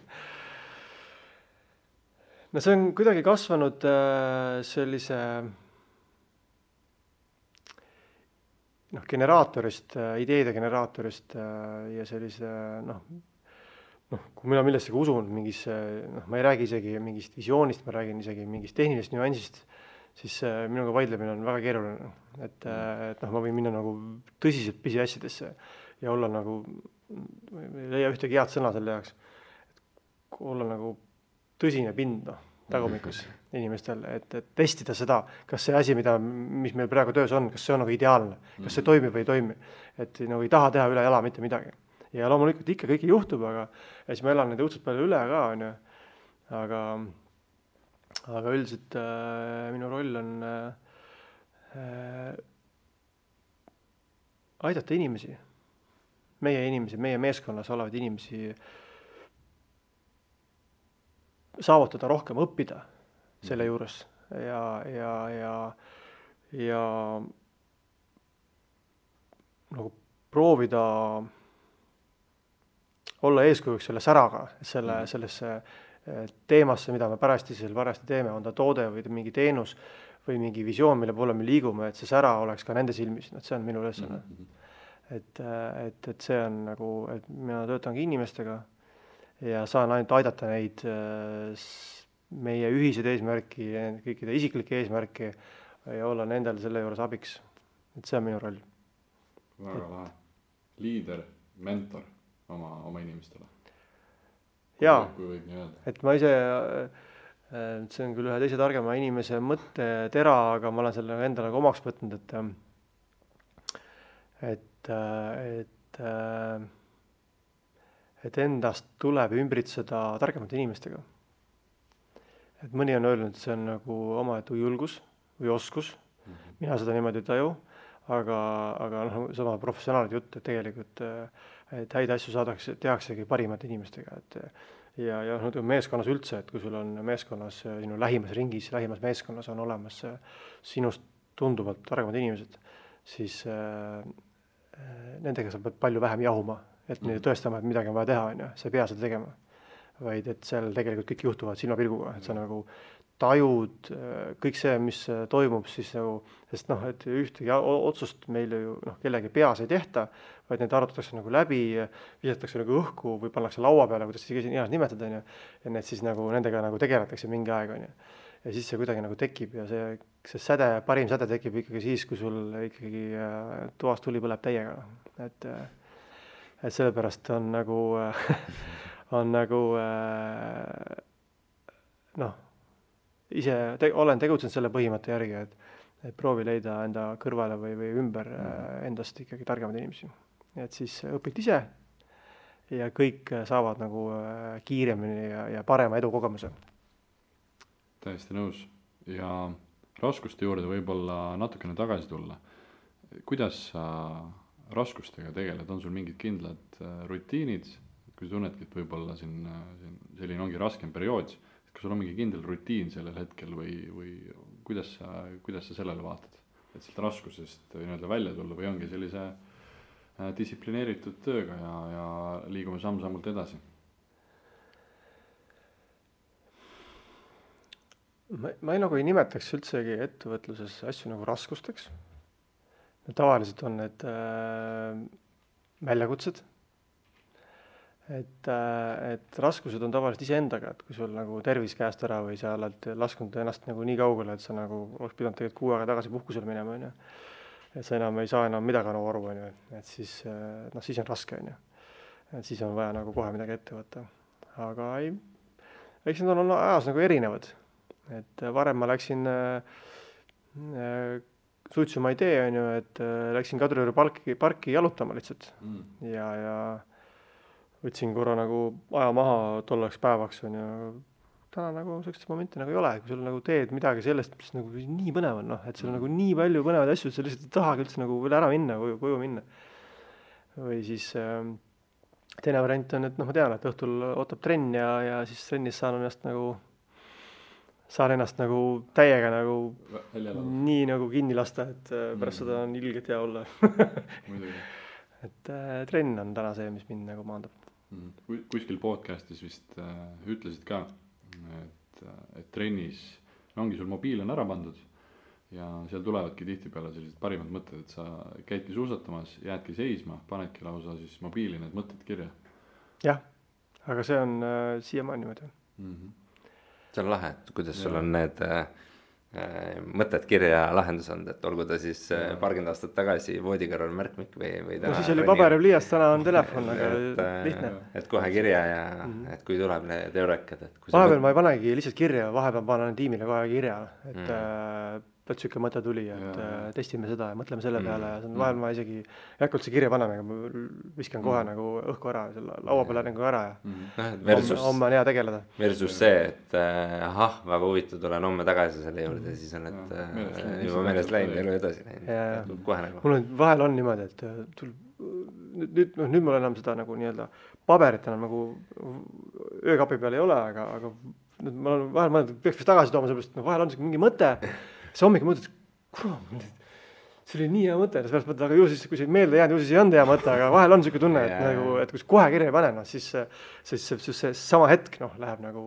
See on kuidagi kasvanud sellise generaatorist, ideede generaatorist ja sellise kui mina millessegi usun, mingisse, ma ei räägi isegi mingist visioonist, ma räägin isegi mingist tehnilisest nüansist, siis minuga vaidlemine on väga keeruline. Et ma võin minna nagu tõsiselt pisiasjadesse ja olla nagu, ei leia ühtegi head sõna selle jaoks, et olla nagu tõsine pind, tagumikus inimestel, et testida seda, kas see asi, mis meil praegu töös on, kas see on nagu ideaalne, kas see toimib või ei toimi. Et nagu ei taha teha üle jala mitte midagi. Ja loomulikult ikka kõike juhtub, aga siis ma elan neid õudselt palju üle ka, on ju. Aga üldiselt minu roll on aidata inimesi, meie meeskonnas olevaid inimesi saavutada rohkem, õppida selle juures ja nagu proovida olla eeskujuks selle säraga, sellesse teemasse, mida me parajasti teeme, on ta toode või mingi teenus või mingi visioon, mille poole me liigume, et see sära oleks ka nende silmis, see on minu ülesanne. Et see on nagu, et mina töötangi inimestega ja saan ainult aidata neid meie ühised eesmärki, kõikide isiklikke eesmärki ja olla nendel selle juures abiks. Et see on minu roll. Väga lahe. Liider, mentor oma inimestele. Jaa, kui võib nii öelda. Et ma ise, see on küll ühe teise targema inimese mõtte tera, aga ma olen selle endale omaks võtnud, et endast tuleb ümbritseda targemate inimestega. Et mõni on öelnud, et see on nagu omaette julgus või oskus. Mina seda niimoodi ei taju, aga sama professionaalid jutt, et tegelikult et häid asju tehaksegi parimate inimestega. Ja meeskonnas üldse, et kui sul on meeskonnas, sinu lähimas ringis, lähimas meeskonnas on olemas sinust tunduvalt targemad inimesed, siis nendega sa pead palju vähem jahuma, et neile tõestama, et midagi on vaja teha, on ju. Sa ei pea seda tegema, vaid et seal tegelikult kõik juhtuvad silmapilguga, et sa nagu tajud kõik see, mis toimub siis nagu, sest et ühtegi otsust meile ju kellegi peas ei tehta, vaid need arutatakse nagu läbi, visatakse nagu õhku või pannakse laua peale, kuidas siis heas nimetada, on ju, ja need siis nagu nendega nagu tegeletakse mingi aeg, on ju. Ja siis see kuidagi nagu tekib ja see säde, parim säde tekib ikkagi siis, kui sul ikkagi toas tuli põleb täiega. Et sellepärast on nagu ise olen tegutsenud selle põhimõtte järgi, et proovi leida enda kõrvale või ümber endast ikkagi targemad inimesi. Et siis õpid ise ja kõik saavad nagu kiiremini ja parema edukogemuse. Täiesti nõus. Ja raskuste juurde võib-olla natukene tagasi tulla. Kuidas sa raskustega tegeled? On sul mingid kindlad rutiinid? Kui tunnedki, et võib-olla selline ongi raskem periood, kas sul on mingi kindel rutiin sellel hetkel või kuidas sa sellele vaatad? Et sealt raskusest välja tulla või ongi sellise distsiplineeritud tööga ja liigume samm-sammult edasi? Ma ei nimetaks üldsegi ettevõtluses asju nagu raskusteks. Tavaliselt on need väljakutsed. Et raskused on tavaliselt iseendaga, et kui sul nagu tervis käest ära või sa oled laskunud ennast nagu nii kaugele, et sa nagu oleks pidanud tegelikult 6 aega tagasi puhkusel minema, on ju. Et sa enam ei saa enam midagi aru, on ju. Et siis on raske, on ju. Et siis on vaja nagu kohe midagi ette võtta. Aga eks need on ajas nagu erinevad. Et varem ma läksin suitsu ma ei tee, on ju, et läksin Kadrioru parki jalutama lihtsalt. Ja võtsin korra nagu aja maha tolleks päevaks, on ju. Täna nagu sellised momenti nagu ei ole, kui sul nagu teed midagi sellest, mis nagu nii põnev on, et sul on nagu nii palju põnevaid asju, et sa lihtsalt ei tahagi üldse nagu veel ära minna, koju minna. Või siis teine variant on, et ma tean, et õhtul ootab trenn ja siis trennis saan ennast nagu täiega nagu nii nagu kinni lasta, et pärast seda on ilgelt hea olla. Et trenn on täna see, mis mind nagu maandab. Kuskil podcastis vist ütlesid ka, et trennis ongi sul mobiil on ära pandud ja seal tulevadki tihtipeale sellised parimad mõtted, et sa käidki suusatamas, jäädki seisma, panedki lausa siis mobiili need mõtted kirja. jah, aga see on siiamaani niimoodi. See on lahe, et kuidas sul on need mõtted kirja lahendus olnud, et olgu ta siis paarkümmend aastat tagasi voodikõrval märkmik või täna. No siis oli paber ja pliiats, täna on telefon, aga lihtne. Et kohe kirja ja et kui tuleb need eurekad. Vahepeal ma ei panegi lihtsalt kirja, vahepeal panen tiimile kohe kirja, et siuke mõte tuli, et testime seda ja mõtleme selle peale ja vahel ma isegi ei hakka üldse kirja panema, aga ma viskan kohe nagu õhku ära, selle laua peale nagu ära ja homme on hea tegeleda. Versus see, et väga huvitav, tulen homme tagasi selle juurde, siis on, et juba meelest läinud, elu edasi läinud. Kohe nagu. Mul vahel on niimoodi, et nüüd mul enam seda nagu nii-öelda paberit enam nagu öökapi peal ei ole, aga ma olen vahel mõelnud, et peaks vist tagasi tooma, sellepärast vahel on mingi mõte. See hommik mõtled, see oli nii hea mõte, siis mõtled, aga ju siis, kui see meelde jäänud, ju siis ei olnud hea mõte, aga vahel on siuke tunne, et kui kohe kirja ei pane, siis see sama hetk läheb nagu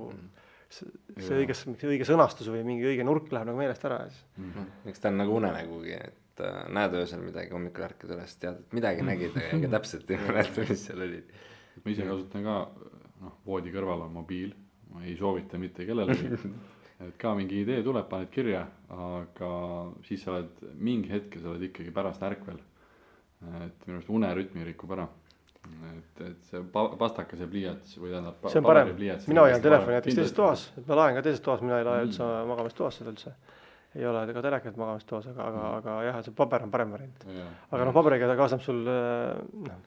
see õige sõnastus või mingi õige nurk läheb nagu meelest ära. Eks ta on nagu unenägugi, et näed öösel midagi, hommikul ärkad üles, tead, et midagi nägid, aga täpselt ei mäleta, mis seal oli. Ma ise kasutan ka, voodi kõrval on mobiil, ma ei soovita mitte kellelegi. Et ka mingi idee tuleb, paned kirja, aga siis sa oled mingi hetke, sa oled ikkagi pärast ärkvel. Et minu arust unerütmi rikub ära. Et see pastakas ja pliiats või tähendab see on parem, mina hoian telefoni jätaks teises toas, et ma laen ka teises toas, mina ei lae üldse magamistoas seda üldse. Ei ole ka telekat magamistoas, aga jah, see paber on parem variant. Aga paberiga ta kaasab sul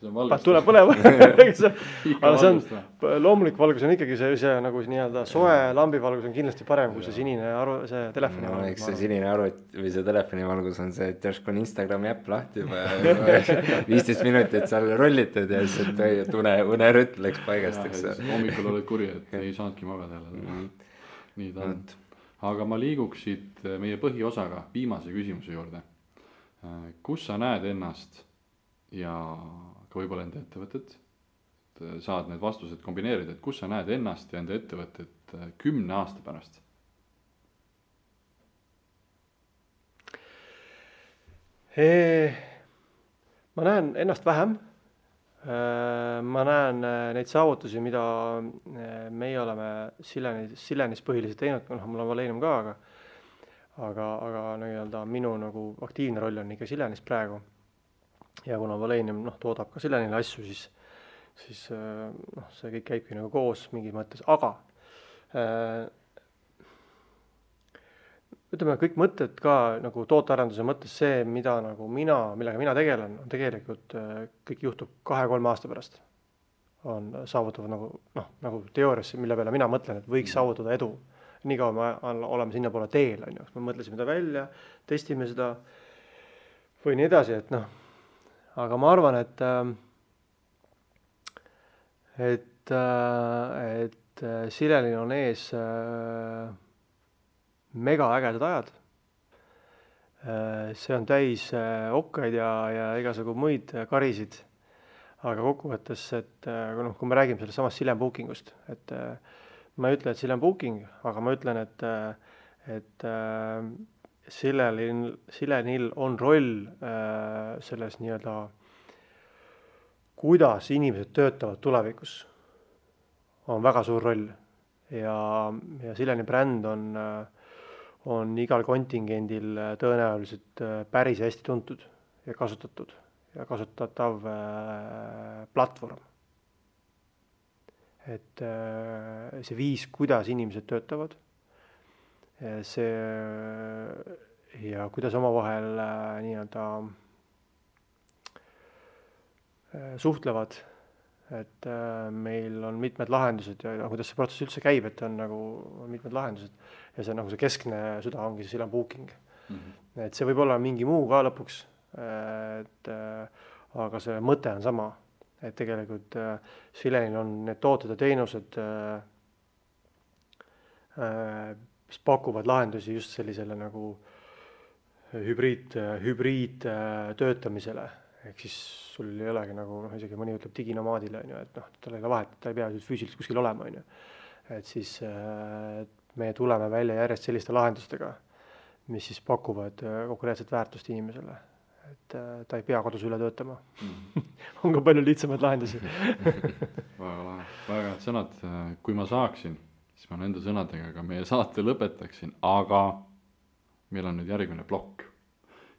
tuleb põlema. Aga see on, loomulik valgus on ikkagi see nagu nii-öelda soe lambivalgus on kindlasti parem kui see sinine see telefoni valgus. Eks see sinine arvuti või see telefoni valgus on see, et järsku on Instagrami äpp lahti juba 15 minutit seal rollitud ja siis unerütm läks paigast. Hommikul oled kuri, et ei saanudki magada. Nii ta on. Aga ma liiguksid meie põhiosaga viimase küsimuse juurde. Kus sa näed ennast ja ka võib-olla enda ettevõtet? Saad need vastused kombineerida, et kus sa näed ennast ja enda ettevõtet 10 aasta pärast? Ma näen ennast vähem. Ma näen neid saavutusi, mida meie oleme Silenis põhiliselt teinud, mul on Valenium ka, aga nii-öelda minu nagu aktiivne roll on ikka Silenis praegu. Ja kuna Valenium toodab ka Silenile asju, siis see kõik käibki nagu koos mingis mõttes, aga ütleme, kõik mõtted ka nagu tootearenduse mõttes see, millega mina tegelen, on tegelikult kõik juhtub 2-3 aasta pärast. On saavutavad nagu teooriasse, mille peale mina mõtlen, et võiks saavutada edu. Nii kaua me oleme sinna poole teel, me mõtlesime ta välja, testime seda või nii edasi, et aga ma arvan, et Silenil on ees mega ägedad ajad. See on täis okkaid ja igasugu muid karisid. Aga kokkuvõttes, et kui me räägime sellest samast Silen Bookingust, et ma ei ütle, et Silen Booking, aga ma ütlen, et Silenil on roll selles nii-öelda, kuidas inimesed töötavad tulevikus, on väga suur roll. Ja Sileni bränd on igal kontingendil tõenäoliselt päris hästi tuntud ja kasutatud ja kasutatav platvorm. Et see viis, kuidas inimesed töötavad, see ja kuidas omavahel nii-öelda suhtlevad, et meil on mitmed lahendused ja kuidas see protsess üldse käib, et on nagu mitmed lahendused ja see nagu see keskne süda ongi see Silen Booking. Et see võib olla mingi muu ka lõpuks, aga see mõte on sama, et tegelikult Silenil on need tooted ja teenused, mis pakuvad lahendusi just sellisele nagu hübriid töötamisele. Ehk siis sul ei olegi nagu, isegi mõni ütleb diginomaadile, et tal ei ole vahet, ta ei pea füüsiliselt kuskil olema. Et siis me tuleme välja järjest selliste lahendustega, mis siis pakuvad konkreetset väärtust inimesele. Et ta ei pea kodus üle töötama. On ka palju lihtsamaid lahendusi. väga lahe, väga head sõnad. Kui ma saaksin, siis ma nende sõnadega ka meie saate lõpetaksin, aga meil on nüüd järgmine plokk.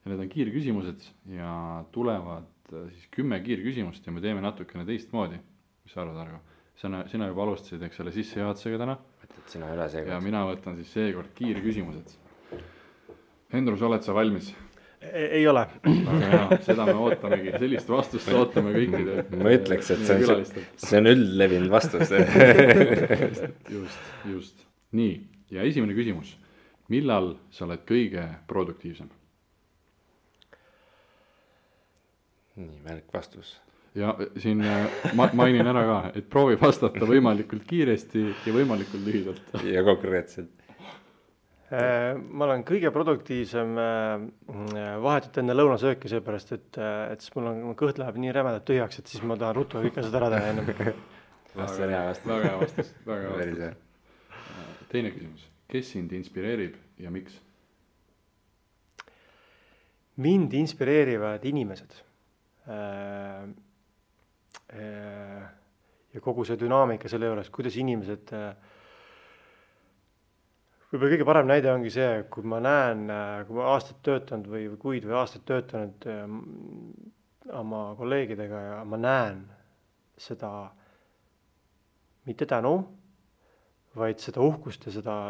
Ja need on kiirküsimused ja tulevad siis 10 kiirküsimust ja me teeme natukene teistmoodi. Mis sa arvad, Argo? Sina juba alustasid, eks selle sissejuhatusega täna. Võtad sina üle seekord. Ja mina võtan siis seekord kiirküsimused. Hendrus, oled sa valmis? Ei ole. Seda me ootamegi, sellist vastust ootame kõikide. Ma ütleks, et see on üldlevinud vastus. Just. Nii, ja esimene küsimus. Millal sa oled kõige produktiivsem? Nii, märk vastus. Ja siin mainin ära ka, et proovi vastata võimalikult kiiresti ja võimalikult lühidalt. Ja konkreetselt. Ma olen kõige produktiivsem vahetult enne lõunasööki, seepärast, et siis mul kõht läheb nii rämedalt tühjaks, et siis ma tahan ruttu kõike seda ära teha ennem. Väga hea vastus. Teine küsimus. Kes sind inspireerib ja miks? Mind inspireerivad inimesed. Ja kogu see dünaamika selle juures, kuidas inimesed... Võib-olla kõige parem näide ongi see, kui ma näen, kui ma aastat töötanud või kuid või aastat töötanud oma kolleegidega ja ma näen seda mitte tänu, vaid seda uhkust ja seda,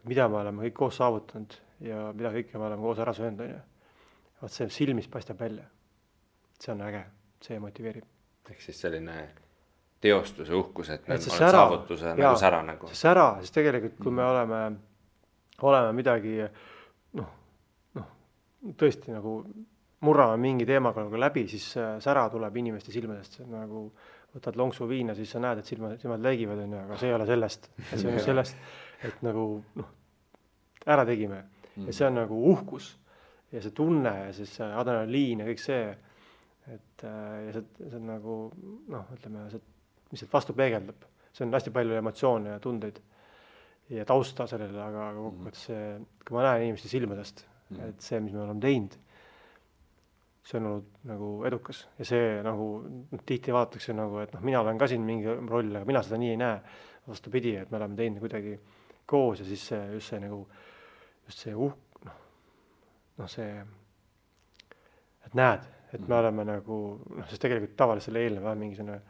mida me oleme kõik koos saavutanud ja mida kõike me oleme koos ära söönud. Vaat see silmis paistab välja. See on äge, see motiveerib. Ehk siis selline... teostuse uhkus, et me oleme sära, saavutuse nagu sära nagu. See sära, siis tegelikult kui me oleme midagi tõesti nagu murrame mingi teemaga nagu läbi, siis sära tuleb inimeste silmadest. Nagu võtad lonksu viina, siis sa näed, et silmad läigivad, aga see ei ole sellest. See on sellest, et nagu ära tegime. Ja see on nagu uhkus ja see tunne ja siis adrenaliin ja kõik see. Ja see on nagu, ütleme, mis sealt vastu peegeldab. See on hästi palju emotsioone ja tundeid ja tausta sellele, aga kokkuvõttes see, kui ma näen inimeste silmadest, et see, mis me oleme teinud, see on olnud nagu edukas. Ja see nagu tihti vaadatakse nagu, et mina olen ka siin mingi roll, aga mina seda nii ei näe. Vastupidi, et me oleme teinud kuidagi koos ja siis just see see, et näed, et me oleme nagu, sest tegelikult tavaliselt selle eelneva mingi selline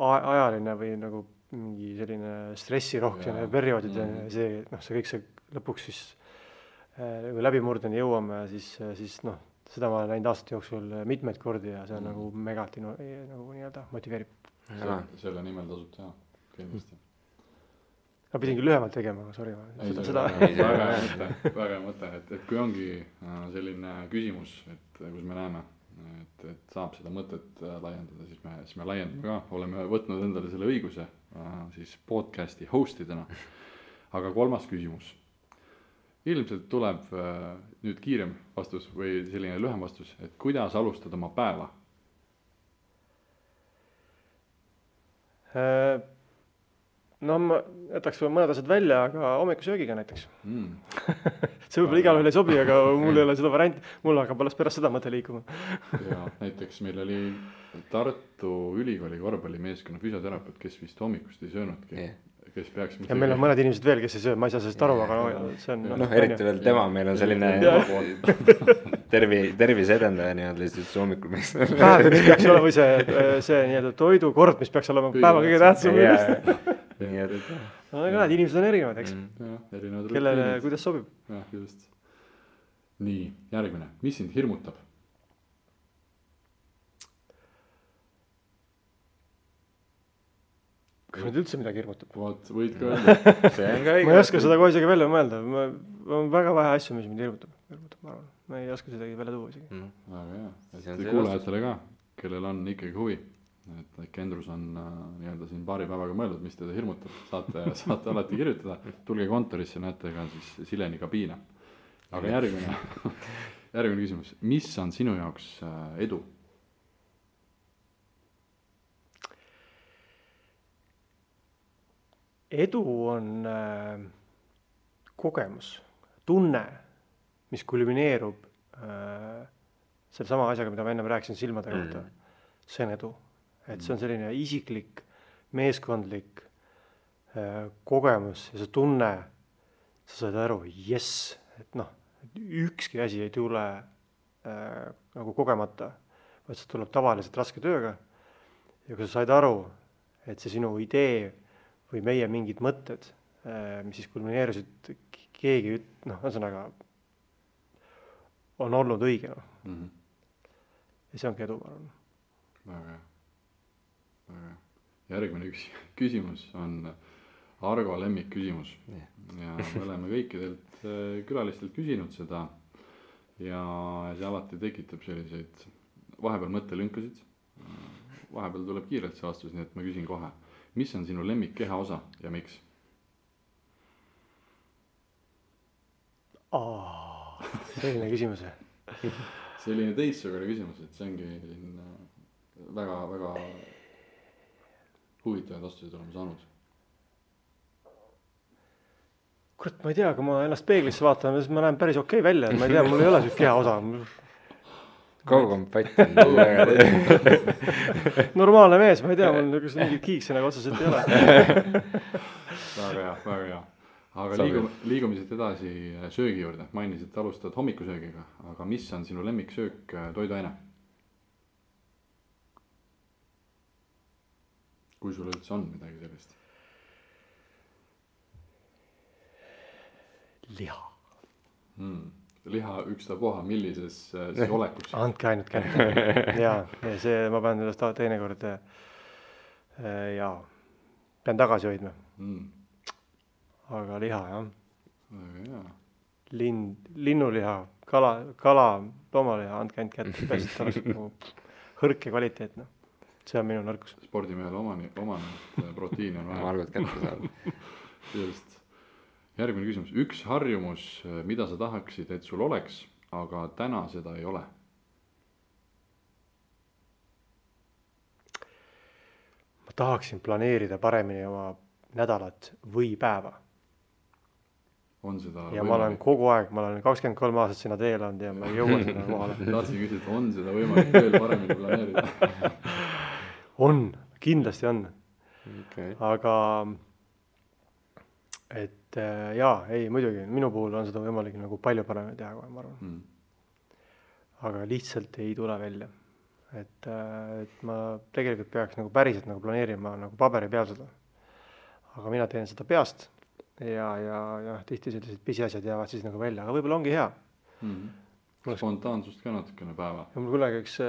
ajaline või nagu mingi selline stressirohkene perioodid, see kõik see lõpuks siis läbimurdeni jõuame, siis seda ma olen näinud aastate jooksul mitmeid kordi ja see on nagu megalt nagu nii-öelda motiveerib. Selle nimel tasub teha, kindlasti. Ma pidin küll lühemalt tegema, aga sorry. Väga hea mõte, et kui ongi selline küsimus, et kus me näeme, et saab seda mõtet laiendada, siis me laiendame ka. Oleme võtnud endale selle õiguse siis podcasti hostidena. Aga 3. küsimus. Ilmselt tuleb nüüd kiirem vastus või selline lühem vastus, et kuidas alustada oma päeva? Ma jätaks mõned asjad välja, aga hommikusöögiga näiteks. See võib-olla igal ühel ei sobi, aga mul ei ole seda varianti. Mul hakkab alles pärast seda mõte liikuma. Ja näiteks meil oli Tartu Ülikooli korvpallimeeskonna füsioterapeut, kes vist hommikust ei söönudki. Kes peaks ja meil on mõned inimesed veel, kes ei söö, ma ei saa sellest aru, aga see on... eriti veel tema, meil on selline tervise edendaja nii-öelda lihtsalt hommikul. Päev, mis peaks olema või see nii-öelda toidukord, mis peaks olema päeva kõige tähtsam. Aga inimesed on erinevad, eks? Kellele, kuidas sobib? Ja, just. Nii, järgmine. Mis sind hirmutab? Kas nüüd üldse midagi hirmutab? Võid ka öelda. Ma ei oska seda kohe isegi välja mõelda. On väga vähe asju, mis mind hirmutab, ma arvan. Ma ei oska seda välja tuua isegi. Väga hea. Et kuulajatele ka, kellel on ikkagi huvi. Et Kendrus on nii-öelda siin paari päevaga mõeldud, mis teda hirmutab. Saate alati kirjutada. Tulge kontorisse, näete ka siis Sileni kabiina. Aga järgmine küsimus. Mis on sinu jaoks edu? Edu on kogemus, tunne, mis kulmineerub selle sama asjaga, mida ma ennem rääkisin silmade kohta, see on edu. Et see on selline isiklik, meeskondlik kogemus ja see tunne, sa saad aru, jess, et noh, ükski asi ei tule nagu kogemata, vaid see tuleb tavaliselt raske tööga. Ja kui sa said aru, et see sinu idee või meie mingid mõtted, mis siis kulmineerusid, keegi, ühesõnaga on olnud õige. Ja see ongi edu, ma arvan. Väga hea. Järgmine küsimus on Argo lemmik küsimus. Ja me oleme kõikidelt külalistelt küsinud seda ja see alati tekitab selliseid vahepeal mõttelünkasid. Vahepeal tuleb kiirelt see vastus, nii et ma küsin kohe. Mis on sinu lemmik kehaosa ja miks? Selline küsimus. Selline teistsugune küsimus, et see ongi väga, väga huvitavaid vastuseid oleme saanud. Kurat, ma ei tea, kui ma ennast peeglisse vaatan, siis ma näen päris okei välja. Ma ei tea, mul ei ole sellist kehaosa. Kaukompatt on normaalne mees, ma ei tea, mul mingid kiikse nagu otseselt ei ole. Väga hea. Aga liigume siit edasi söögi juurde. Mainisid, et alustad hommikusöögiga, aga mis on sinu lemmiksöök toiduaine? Kui sul üldse on midagi sellist? Liha. Liha ükstapuha, millises siis olekus? Andke ainult kätte. Ja see ma pean sellest teinekord pean tagasi hoidma. Aga liha, jah. Väga hea. Linnuliha, kala, loomaliha, andke ainult kätte. Pärast oleks nagu hõrk ja kvaliteetne. See on minu nõrkus. Spordimehel omane proteiini on vaja. Margot kätte saada. Just. Järgmine küsimus. Üks harjumus, mida sa tahaksid, et sul oleks, aga täna seda ei ole? Ma tahaksin planeerida paremini oma nädalat või päeva. On seda ja ma olen kogu aeg, ma olen 23 aastat sinna teel olnud ja ma ei jõua sinna kohale. Tahtsin küsida, on seda võimalik veel paremini planeerida? On, kindlasti on. Okay. Aga muidugi, minu puhul on seda võimalik nagu palju paremini teha, kui ma arvan. Aga lihtsalt ei tule välja. Et ma tegelikult peaks nagu päriselt nagu planeerima nagu paberi peal seda. Aga mina teen seda peast ja tihti sellised pisiasjad jäävad siis nagu välja, aga võib-olla ongi hea. Spontaansust ka natukene päeva. Ja mul kunagi üks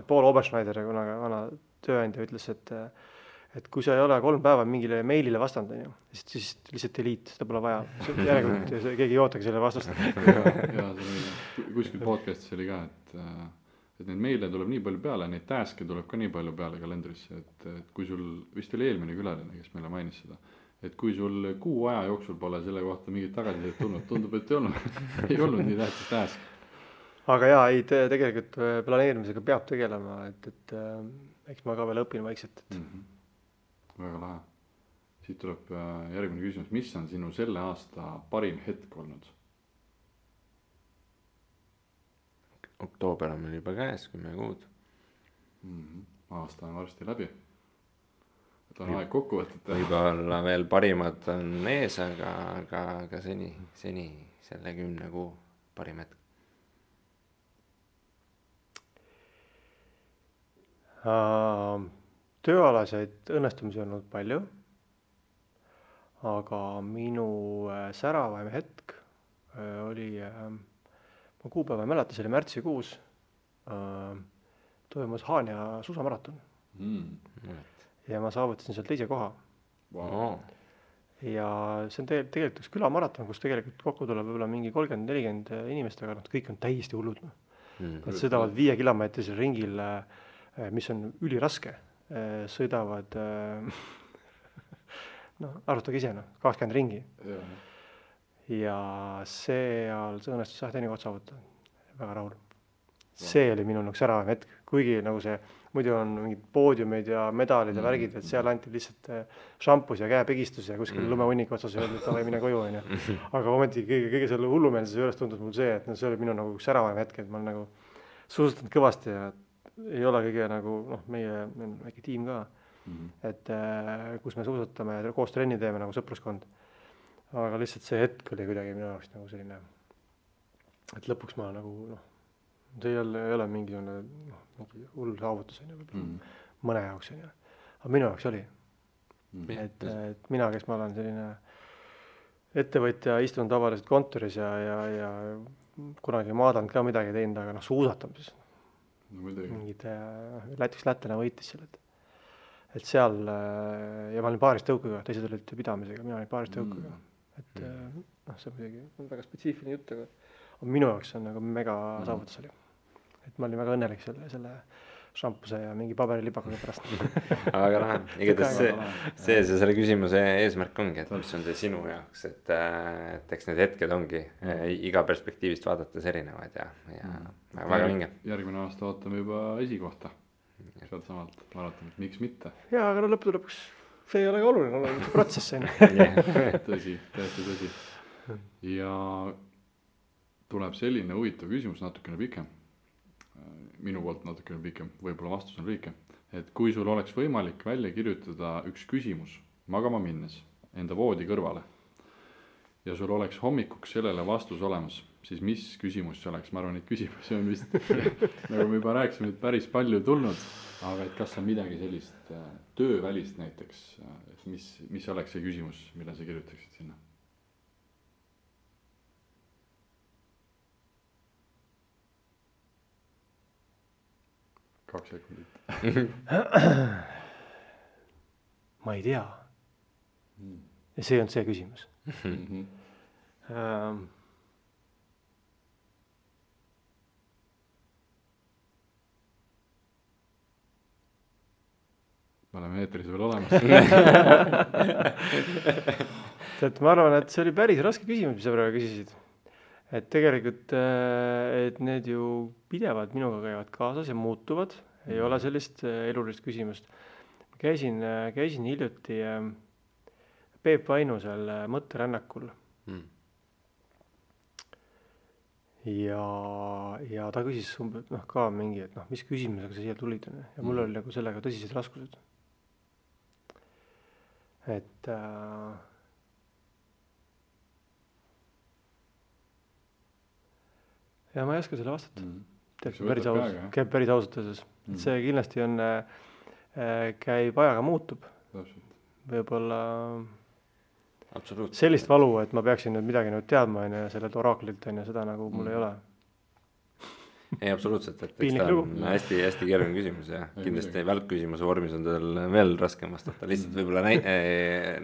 Paul Oberschneider, kunagi vana tööandja ütles, et kui sa ei ole 3 päeva mingile meilile vastanud, siis lihtsalt delete, seda pole vaja. Järelikult keegi ei ootagi selle vastust. Ja kuskil podcastis oli ka, et neid meile tuleb nii palju peale, neid task'e tuleb ka nii palju peale kalendrisse, et kui sul, vist oli eelmine külaline, kes meile mainis seda, et kui sul kuu aja jooksul pole selle kohta mingit tagasisidet tulnud, tundub, et ei olnud nii tähtis task. Aga tegelikult planeerimisega peab tegelema, et eks ma ka veel õpin vaikselt. Väga lahe. Siit tuleb järgmine küsimus. Mis on sinu selle aasta parim hetk olnud? Oktoober on meil juba käes, 10 kuud. Aasta on varsti läbi. Et on aeg kokku võtta. Võib-olla veel parimad on ees, aga seni selle 10 kuu parim hetk. Tööalaseid õnnestumisi on olnud palju, aga minu säravaim hetk oli, ma kuupäeva ei mäleta, see oli märtsikuus, toimus Haanja suusamaraton. Ja ma saavutasin seal 2. koha. Wow. Ja see on tegelikult üks külamaraton, kus tegelikult kokku tuleb võib-olla mingi 30-40 inimest, aga kõik on täiesti hullud. Nad sõidavad 5 kilomeetrisel ringil, mis on üliraske, sõidavad, arvutage ise, 20 ringi. Ja seal see õnnestus teine koht saavutada. Väga rahul. See oli minu säravaim hetk, kuigi nagu see muidu on mingid poodiumid ja medalid ja värgid, et seal anti lihtsalt šampus ja käepigistus ja kuskil lumehunniku otsas öeldi, et davai, mine koju, on ju. Aga ometi kõige selle hullumeelsuse juures tundus mul see, et see oli minu nagu üks säravaim hetk, et ma olen nagu suusatanud kõvasti ja ei ole kõige nagu, meie on väike tiim ka, et kus me suusatame ja koos trenni teeme nagu sõpruskond. Aga lihtsalt see hetk oli kuidagi minu jaoks nagu selline, et lõpuks ma nagu, see ei ole mingi hull saavutus, on ju, mõne jaoks, on ju. Aga minu jaoks oli. Et mina, kes ma olen selline ettevõtja, istun tavaliselt kontoris ja kunagi maadanud ka midagi teinud, aga suusatamises. Mingid lätlane võitis seal, et seal, ja ma olin paaris tõukuga, teised olid pidamisega, mina olin paaris tõukuga. Et see on muidugi väga spetsiifiline jutt, aga minu jaoks on nagu mega saavutus oli. Et ma olin väga õnnelik selle šampuse ja mingi paberilibakaga pärast. Aga lahe, igatahes see selle küsimuse eesmärk ongi, et mis on see sinu jaoks, et eks need hetked ongi iga perspektiivist vaadates erinevad ja väga vinge. Järgmine aasta ootame juba esikohta sealt samalt maratonit, miks mitte? Jaa, aga lõppude lõpuks see ei ole ka oluline, on see protsess. Tõsi, täiesti tõsi. Ja tuleb selline huvitav küsimus, natukene pikem. Minu poolt natukene pikem, võib-olla vastus on lühike. Et kui sul oleks võimalik välja kirjutada üks küsimus magama minnes enda voodi kõrvale ja sul oleks hommikuks sellele vastus olemas, siis mis küsimus see oleks? Ma arvan, et küsimusi on vist, nagu me juba rääkisime, et päris palju tulnud, aga et kas on midagi sellist töövälist näiteks, mis oleks see küsimus, mida sa kirjutaksid sinna? 2 sekundit. Ma ei tea. Ja see on see küsimus. Me oleme eetris veel olemas. Ma arvan, et see oli päris raske küsimus, mis sa praegu küsisid. Et tegelikult, et need ju pidevad minuga käivad kaasas ja muutuvad, ei ole sellist elulist küsimust. Käisin hiljuti Peep Vainusel mõtterännakul ja ta küsis ka mingi, et mis küsimusega sa siia tulid ja mul oli nagu sellega tõsised raskused. Et ja ma ei oska selle vastata. Käib päris ausalt öeldes. See kindlasti on, käib ajaga muutub. Võib-olla sellist valu, et ma peaksin nüüd midagi nüüd teadma ja sellelt oraklilt ja seda nagu mul ei ole. Ei, absoluutselt, et ta on hästi keeruline küsimus ja kindlasti välkküsimuse vormis on tal veel raskem vastata. Lihtsalt võib-olla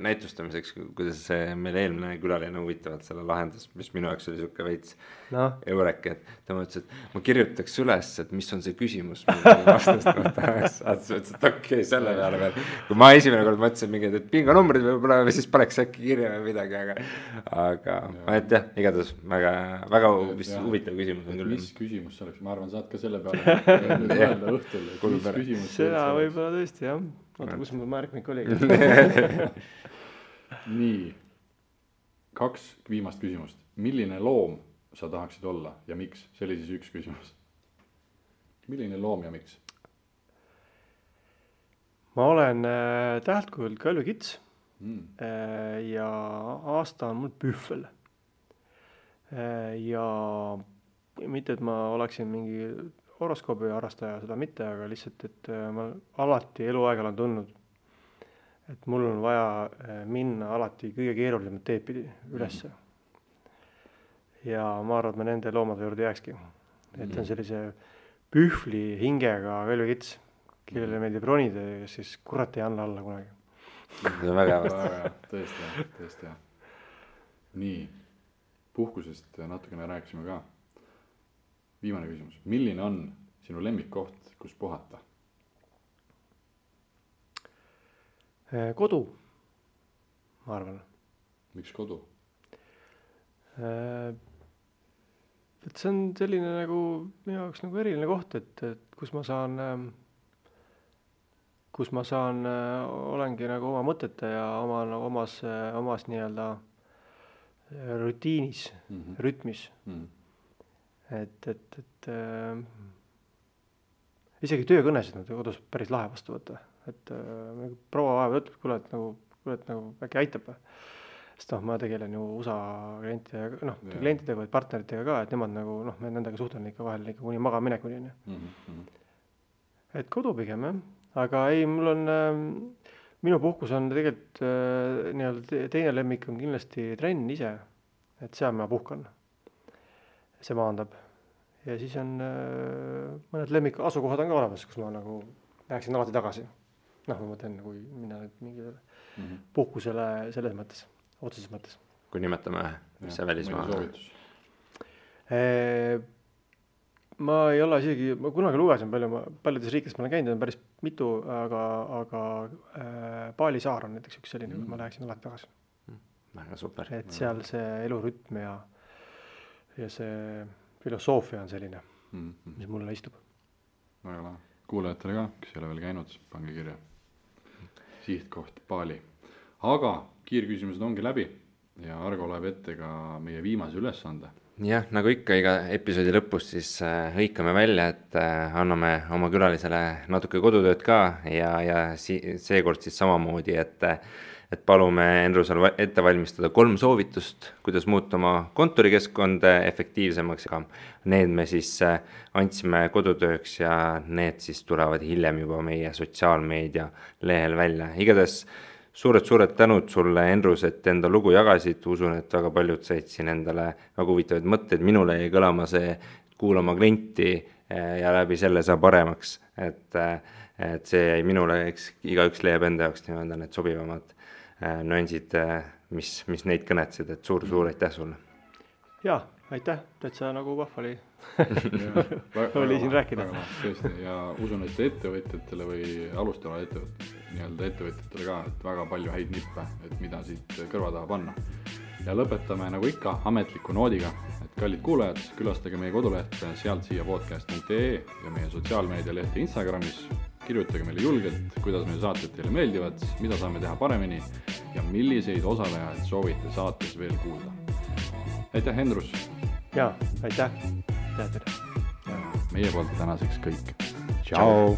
näitustamiseks, kuidas see meil eelmine külaline huvitavalt selle lahendas, mis minu jaoks oli siuke veits eurek, et ta mõtles, et ma kirjutaks üles, et mis on see küsimus, mida vastast tahaks. Et okei, selle peale veel. Kui ma esimene kord mõtlesin mingid, et pinganumbrid võib-olla või siis paneks äkki kirja või midagi, aga et jah, igatahes väga huvitav küsimus on küll. Mis küsimus see oleks? Ma arvan, saad ka selle peale öelda õhtul, et mis küsimus seda võib-olla tõesti, jah. Oota, kus mul märkmik oli? Nii, 2 viimast küsimust. Milline loom sa tahaksid olla ja miks? See oli siis üks küsimus. Milline loom ja miks? Ma olen täheltkujult kalvikits ja aasta on mul pühvel. Ja mitte, et ma oleksin mingi horoskoobi harrastaja, seda mitte, aga lihtsalt, et ma alati eluaeg olen tundnud, et mul on vaja minna alati kõige keerulisemat teed pidi ülesse. Ja ma arvan, et ma nende loomade juurde jääkski. Et on sellise pühvli hingega kalvikits, kellele meeldib ronida ja siis kurat ei anna alla kunagi. See on väga hea. Tõesti hea. Nii, puhkusest natukene rääkisime ka. Viimane küsimus. Milline on sinu lemmikkoht, kus puhata? Kodu, ma arvan. Miks kodu? Et see on selline nagu minu jaoks nagu eriline koht, et kus ma saan kus ma saan, olengi nagu oma mõtete ja omas nii-öelda rutiinis, rütmis. Et isegi töökõnesid nad kodus päris lahe vastu võtta. Et proua vahepeal ütleb, kuule, et nagu äkki aitab. Sest ma tegelen ju USA klientidega või partneritega ka, et nemad nagu, me nendega suhtlen ikka vahel ikka kuni magaminekuni. Et kodu pigem, jah. Aga ei, minu puhkus on tegelikult nii-öelda teine lemmik on kindlasti trenn ise, et seal ma puhkan. See maandab. Ja siis on mõned lemmik asukohad on ka olemas, kus ma nagu läheksin alati tagasi. Ma mõtlen, kui minna mingile puhkusele selles mõttes, otseses mõttes. Kui nimetame, mis see välismaa? Ma ei ole isegi, ma kunagi lugesin paljudes riikides ma olen käinud, on päris mitu, aga Bali saar on näiteks üks selline, ma läheksin alati tagasi. Väga super. Et seal see elurütm ja see filosoofia on selline, mis mulle istub. Väga lahe. Kuulajatele ka, kes ei ole veel käinud, pange kirja. Sihtkoht Bali. Aga kiirküsimused ongi läbi ja Argo loeb ette ka meie viimase ülesande. Jah, nagu ikka iga episoodi lõpus siis hõikame välja, et anname oma külalisele natuke kodutööd ka ja seekord siis samamoodi, et palume Endrusel ette valmistada 3 soovitust, kuidas muuta oma kontorikeskkond efektiivsemaks ja need me siis andsime kodutööks ja need siis tulevad hiljem juba meie sotsiaalmeedia lehel välja. Igades suured tänud sulle, Endrus, et enda lugu jagasid, usun, et väga paljud said siin endale väga huvitavaid mõtteid, minule jäi kõlama see kuulama klienti ja läbi selle saab paremaks, et see jäi minule, igaüks leiab enda jaoks nii-öelda need sobivamad nüansid, mis neid kõnetsid, et suur aitäh sulle. Jaa, aitäh, täitsa nagu vahva oli siin rääkida. Tõesti, ja usun, et ettevõtjatele või alustavale ettevõtjatele ka, et väga palju häid nippe, et mida siit kõrva taha panna. Ja lõpetame nagu ikka ametliku noodiga, et kallid kuulajad, külastage meie koduleht sealtsiiapodcast.ee ja meie sotsiaalmeedia lehti Instagramis. Kirjutage meile julgelt, kuidas meie saated teile meeldivad, mida saame teha paremini ja milliseid osalejaid soovite saates veel kuulda. Aitäh, Endrus! Jaa, aitäh! Teile! Meie poolt tänaseks kõik. Ciao!